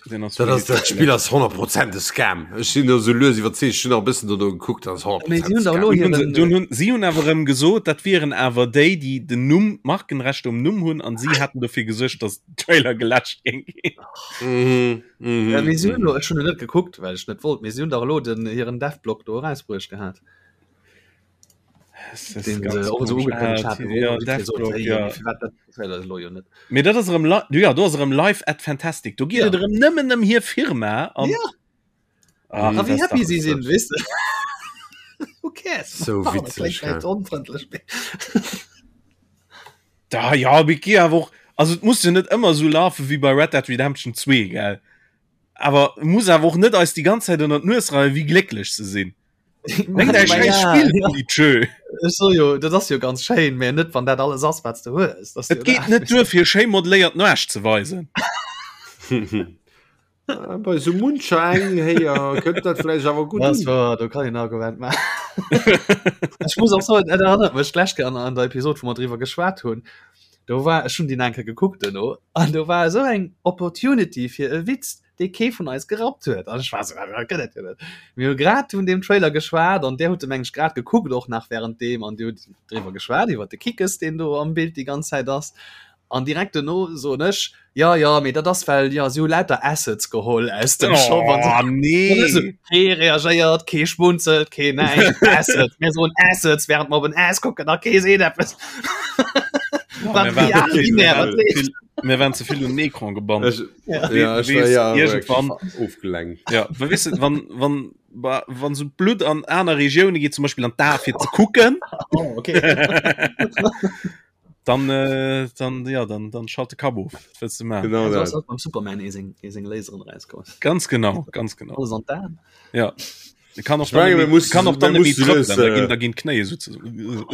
Den ass Dat ass, dat Spill ass 100 Prozent e Scam. Ech sinn do sou lues iwwerzeegt. Ech hunn nach e bëssen dono gekuckt, dat ass 100 Mee Prozent si hunn dach Scam. elo Dunn hunn se, hiren. dunn hunn, si hunn awer erëm gesot, dat wieren awer déi, déi den Numm, d'Markenrechte um Numm hunn, an si hätten dofir gesuergt, datt den Trailer geläscht géing ginn. Mhm, mhm, Ja, mee si hunn mhm. elo, ech hunn en net gekuckt, well ech net wollt, mee si hunn dach elo den hiren Devblog do erausbruecht gehat. Es ist Den ganz se och esou komisch. ugekënnegt Ah, haten, ja, wou jiddweree sot, Devblog, hey, ja. mee firwat dat Trailer elo jo net? Mee dat ass erëm li ja, do ass erëm Live at Fantastic. Do geet Ja. et erëm nëmmen ëm hir Firma an Ja. Ach, A dat wéi ass happy dach si sinn, weess de. Who cares? So Pardon, witzeg, kléngt ja. vläicht onfrëndlech, mee. Da ja, mee gi awer och also et muss jo net ëmmer esou lafe wéi bei Red Dead Redemption 2, gell? Awer muss awer och net eis déi ganz Zäit ënner d'Nues reien, wéi glécklech se sinn. Bréngt äi schäiss Spill un déi Tschö. Ech so jo, dat ass jo ganz schéin, mä net wann dat alles ass, wat s de hues. Dat ass Et jo geet dat. net duer fir schéi modeléiert Nuasch ze weisen. Ah, Bei sou muncher eng Héier kënnt dat vläicht awer gutt Das un. war, do kann een Argument maachen. Ech muss och soen, et erënnert mech d'lescht Kéier an, an der Episod, wou mer driwwer geschwat hunn, do war, ech hunn déi nach eng Kéier gekuckt duerno, an do war esou eng Opportunity fir e Witz, dee kee vun eis gerappt huet. An ech war esou, dat gëtt et jo net. Mir hu grad vun deem Trailer geschwat an där hutt e meng ech grad gekuckt och nach während deem an dir hutt driwwer geschwat iwwer de Kickes, deen do am Bild déi ganz Zäit ass. An direkt duerno soen ech, jo, jo, mee dat ass well, jo, si hu lauter Assets geholl aus dem Shop an Oh sou. nee! Kee reagéiert, kee schmunzelt, kee näischt. Assets, mir soen Assets, während mer op en Ass kucken a kee seet eppes. Ja, Wat mir waren real ze vill, mir binär, waren wat ze leeft. vill, mir waren ze vill un den Ecran gebannt. Ech, Ja. ja, ech war Weess, ja irgendwann, ofgelenkt. ja, well weess de, wann, wann, wa- wann sou d'Blutt an aner Regioune geet, zum Beispill an d'Ae fir ze kucken, Oh, okay. Dann, äh, dann, ja, dann, dann schalt de Kapp of. Was willst du machen? Genau Ja, dat. so beim Superman eh seng, eh seng Laseren rauskomm. Ganz genau, ganz genau. Alles an d'Aen. Ja. De kann och Ich meine, dann wir net méi- müssen- kann och dann wir net méi müssen trëppelen, das, da äh, ginn, da ginn d'Knéie so zusammen.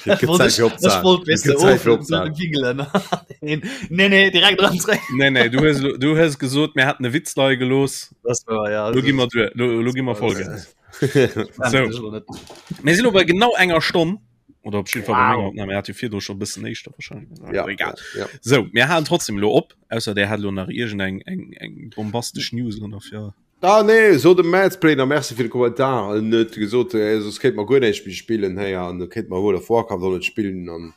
Et gëtt Zäit fir Ech opzehalen. wollt Et weess de gëtt Zäit fir of opzehalen. wigelen. Nee, nee, direkt dran zréck. Nee, nee, du hues, du hues gesot, mir hätten e Witz leie gelooss. Das war ja. Lo gi mer duer, lo, lo gi mer Vollgas. So. Mir sinn lo bei genau enger Stonn. Oder op jeden Fall bei Wow. menger Opnahme. Mir hat jo virdru scho bëssen éischter wahrscheinlich. Ja, Egal. ja. So, mir halen trotzdem lo op, ausser der hat lo nach irgend eng eng eng bombastesch News oder fir. Ah nee, so de Madsplay, merci fir de Kommentar. En huet gesot, äh, soss kéint mer guer näischt méi spillen héier an kéint mer World of Warcraft och net spillen an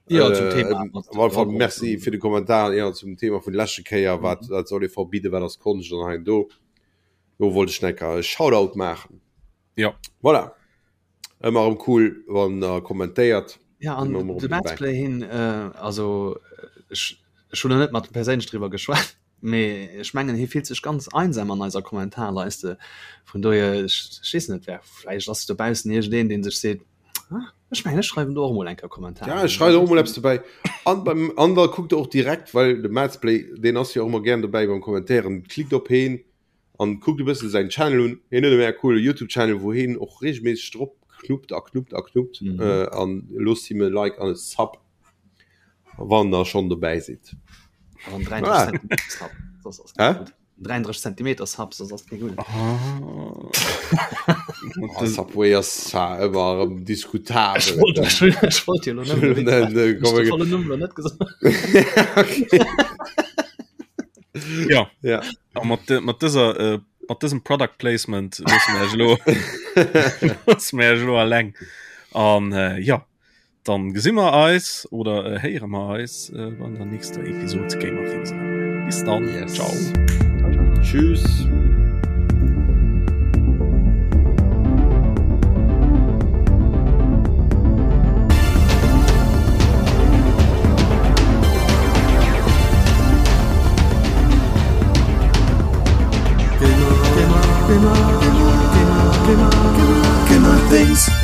Ja, zum äh, Thema. op alle Fall merci fir de Kommentar ja, zum Thema vun leschte Kéier, wat wat soll ee verbidden, wat ass Konscht an hei an do. Do wollt ech necker e Shoutout maachen. Ja. Voilà. Ëmmer erëm cool, wann der kommentéiert. Ja, an Ëmmer erëm de dobäi. Madsplay hin, äh, also ech, ech hunn net mat perséinlech driwwer geschwat, mee ech mengen hie fillt sech ganz einsam an eiser Kommentarleiste. Vun dohier, ech, ech weess net, wer, vläicht ass dobaussen iergendeen, dee sech seet, ah, ech. Ech mengen ech schreiwen do och mol eng Kéier Kommentar. Ja, ech schreiwen och mol eppes dobäi. An beim an da kuckt och direkt, well de Madsplay, deen ass jo och ëmmer gären dobäi beim Kommentéieren, klickt op heen an kuckt e bëssen säin Channel un. Hien huet e mega coole YouTube Channel, wou heen och regelméisseg drop knuppt a knuppt a knuppt. Mm -hmm. äh, an loosst him e Like an e Sub, wann der schonn dobäi sidd. An 33 ah. Sub. Das ass Hä? 33 Zentimeter Sub, das ass keng gutt. Oh. Subway ass zwar ëmmer erëm diskutabel. Ech wollt, ech, ech wollt jo lo net gesot. Ja. Ja. A mat, mat dëser äh, mat dësem Product Placement loosse mir iech elo loosse mir iech elo alleng. An äh, ja, dann gesi mer eis oder äh, héiere mer eis äh, an der nächster Episode Gamer Things. Bis dann. Yes. Ciao. Tschüss. Gamer, Gamer, Gamer, Gamer, Gamer, Gamer, Gamer Things.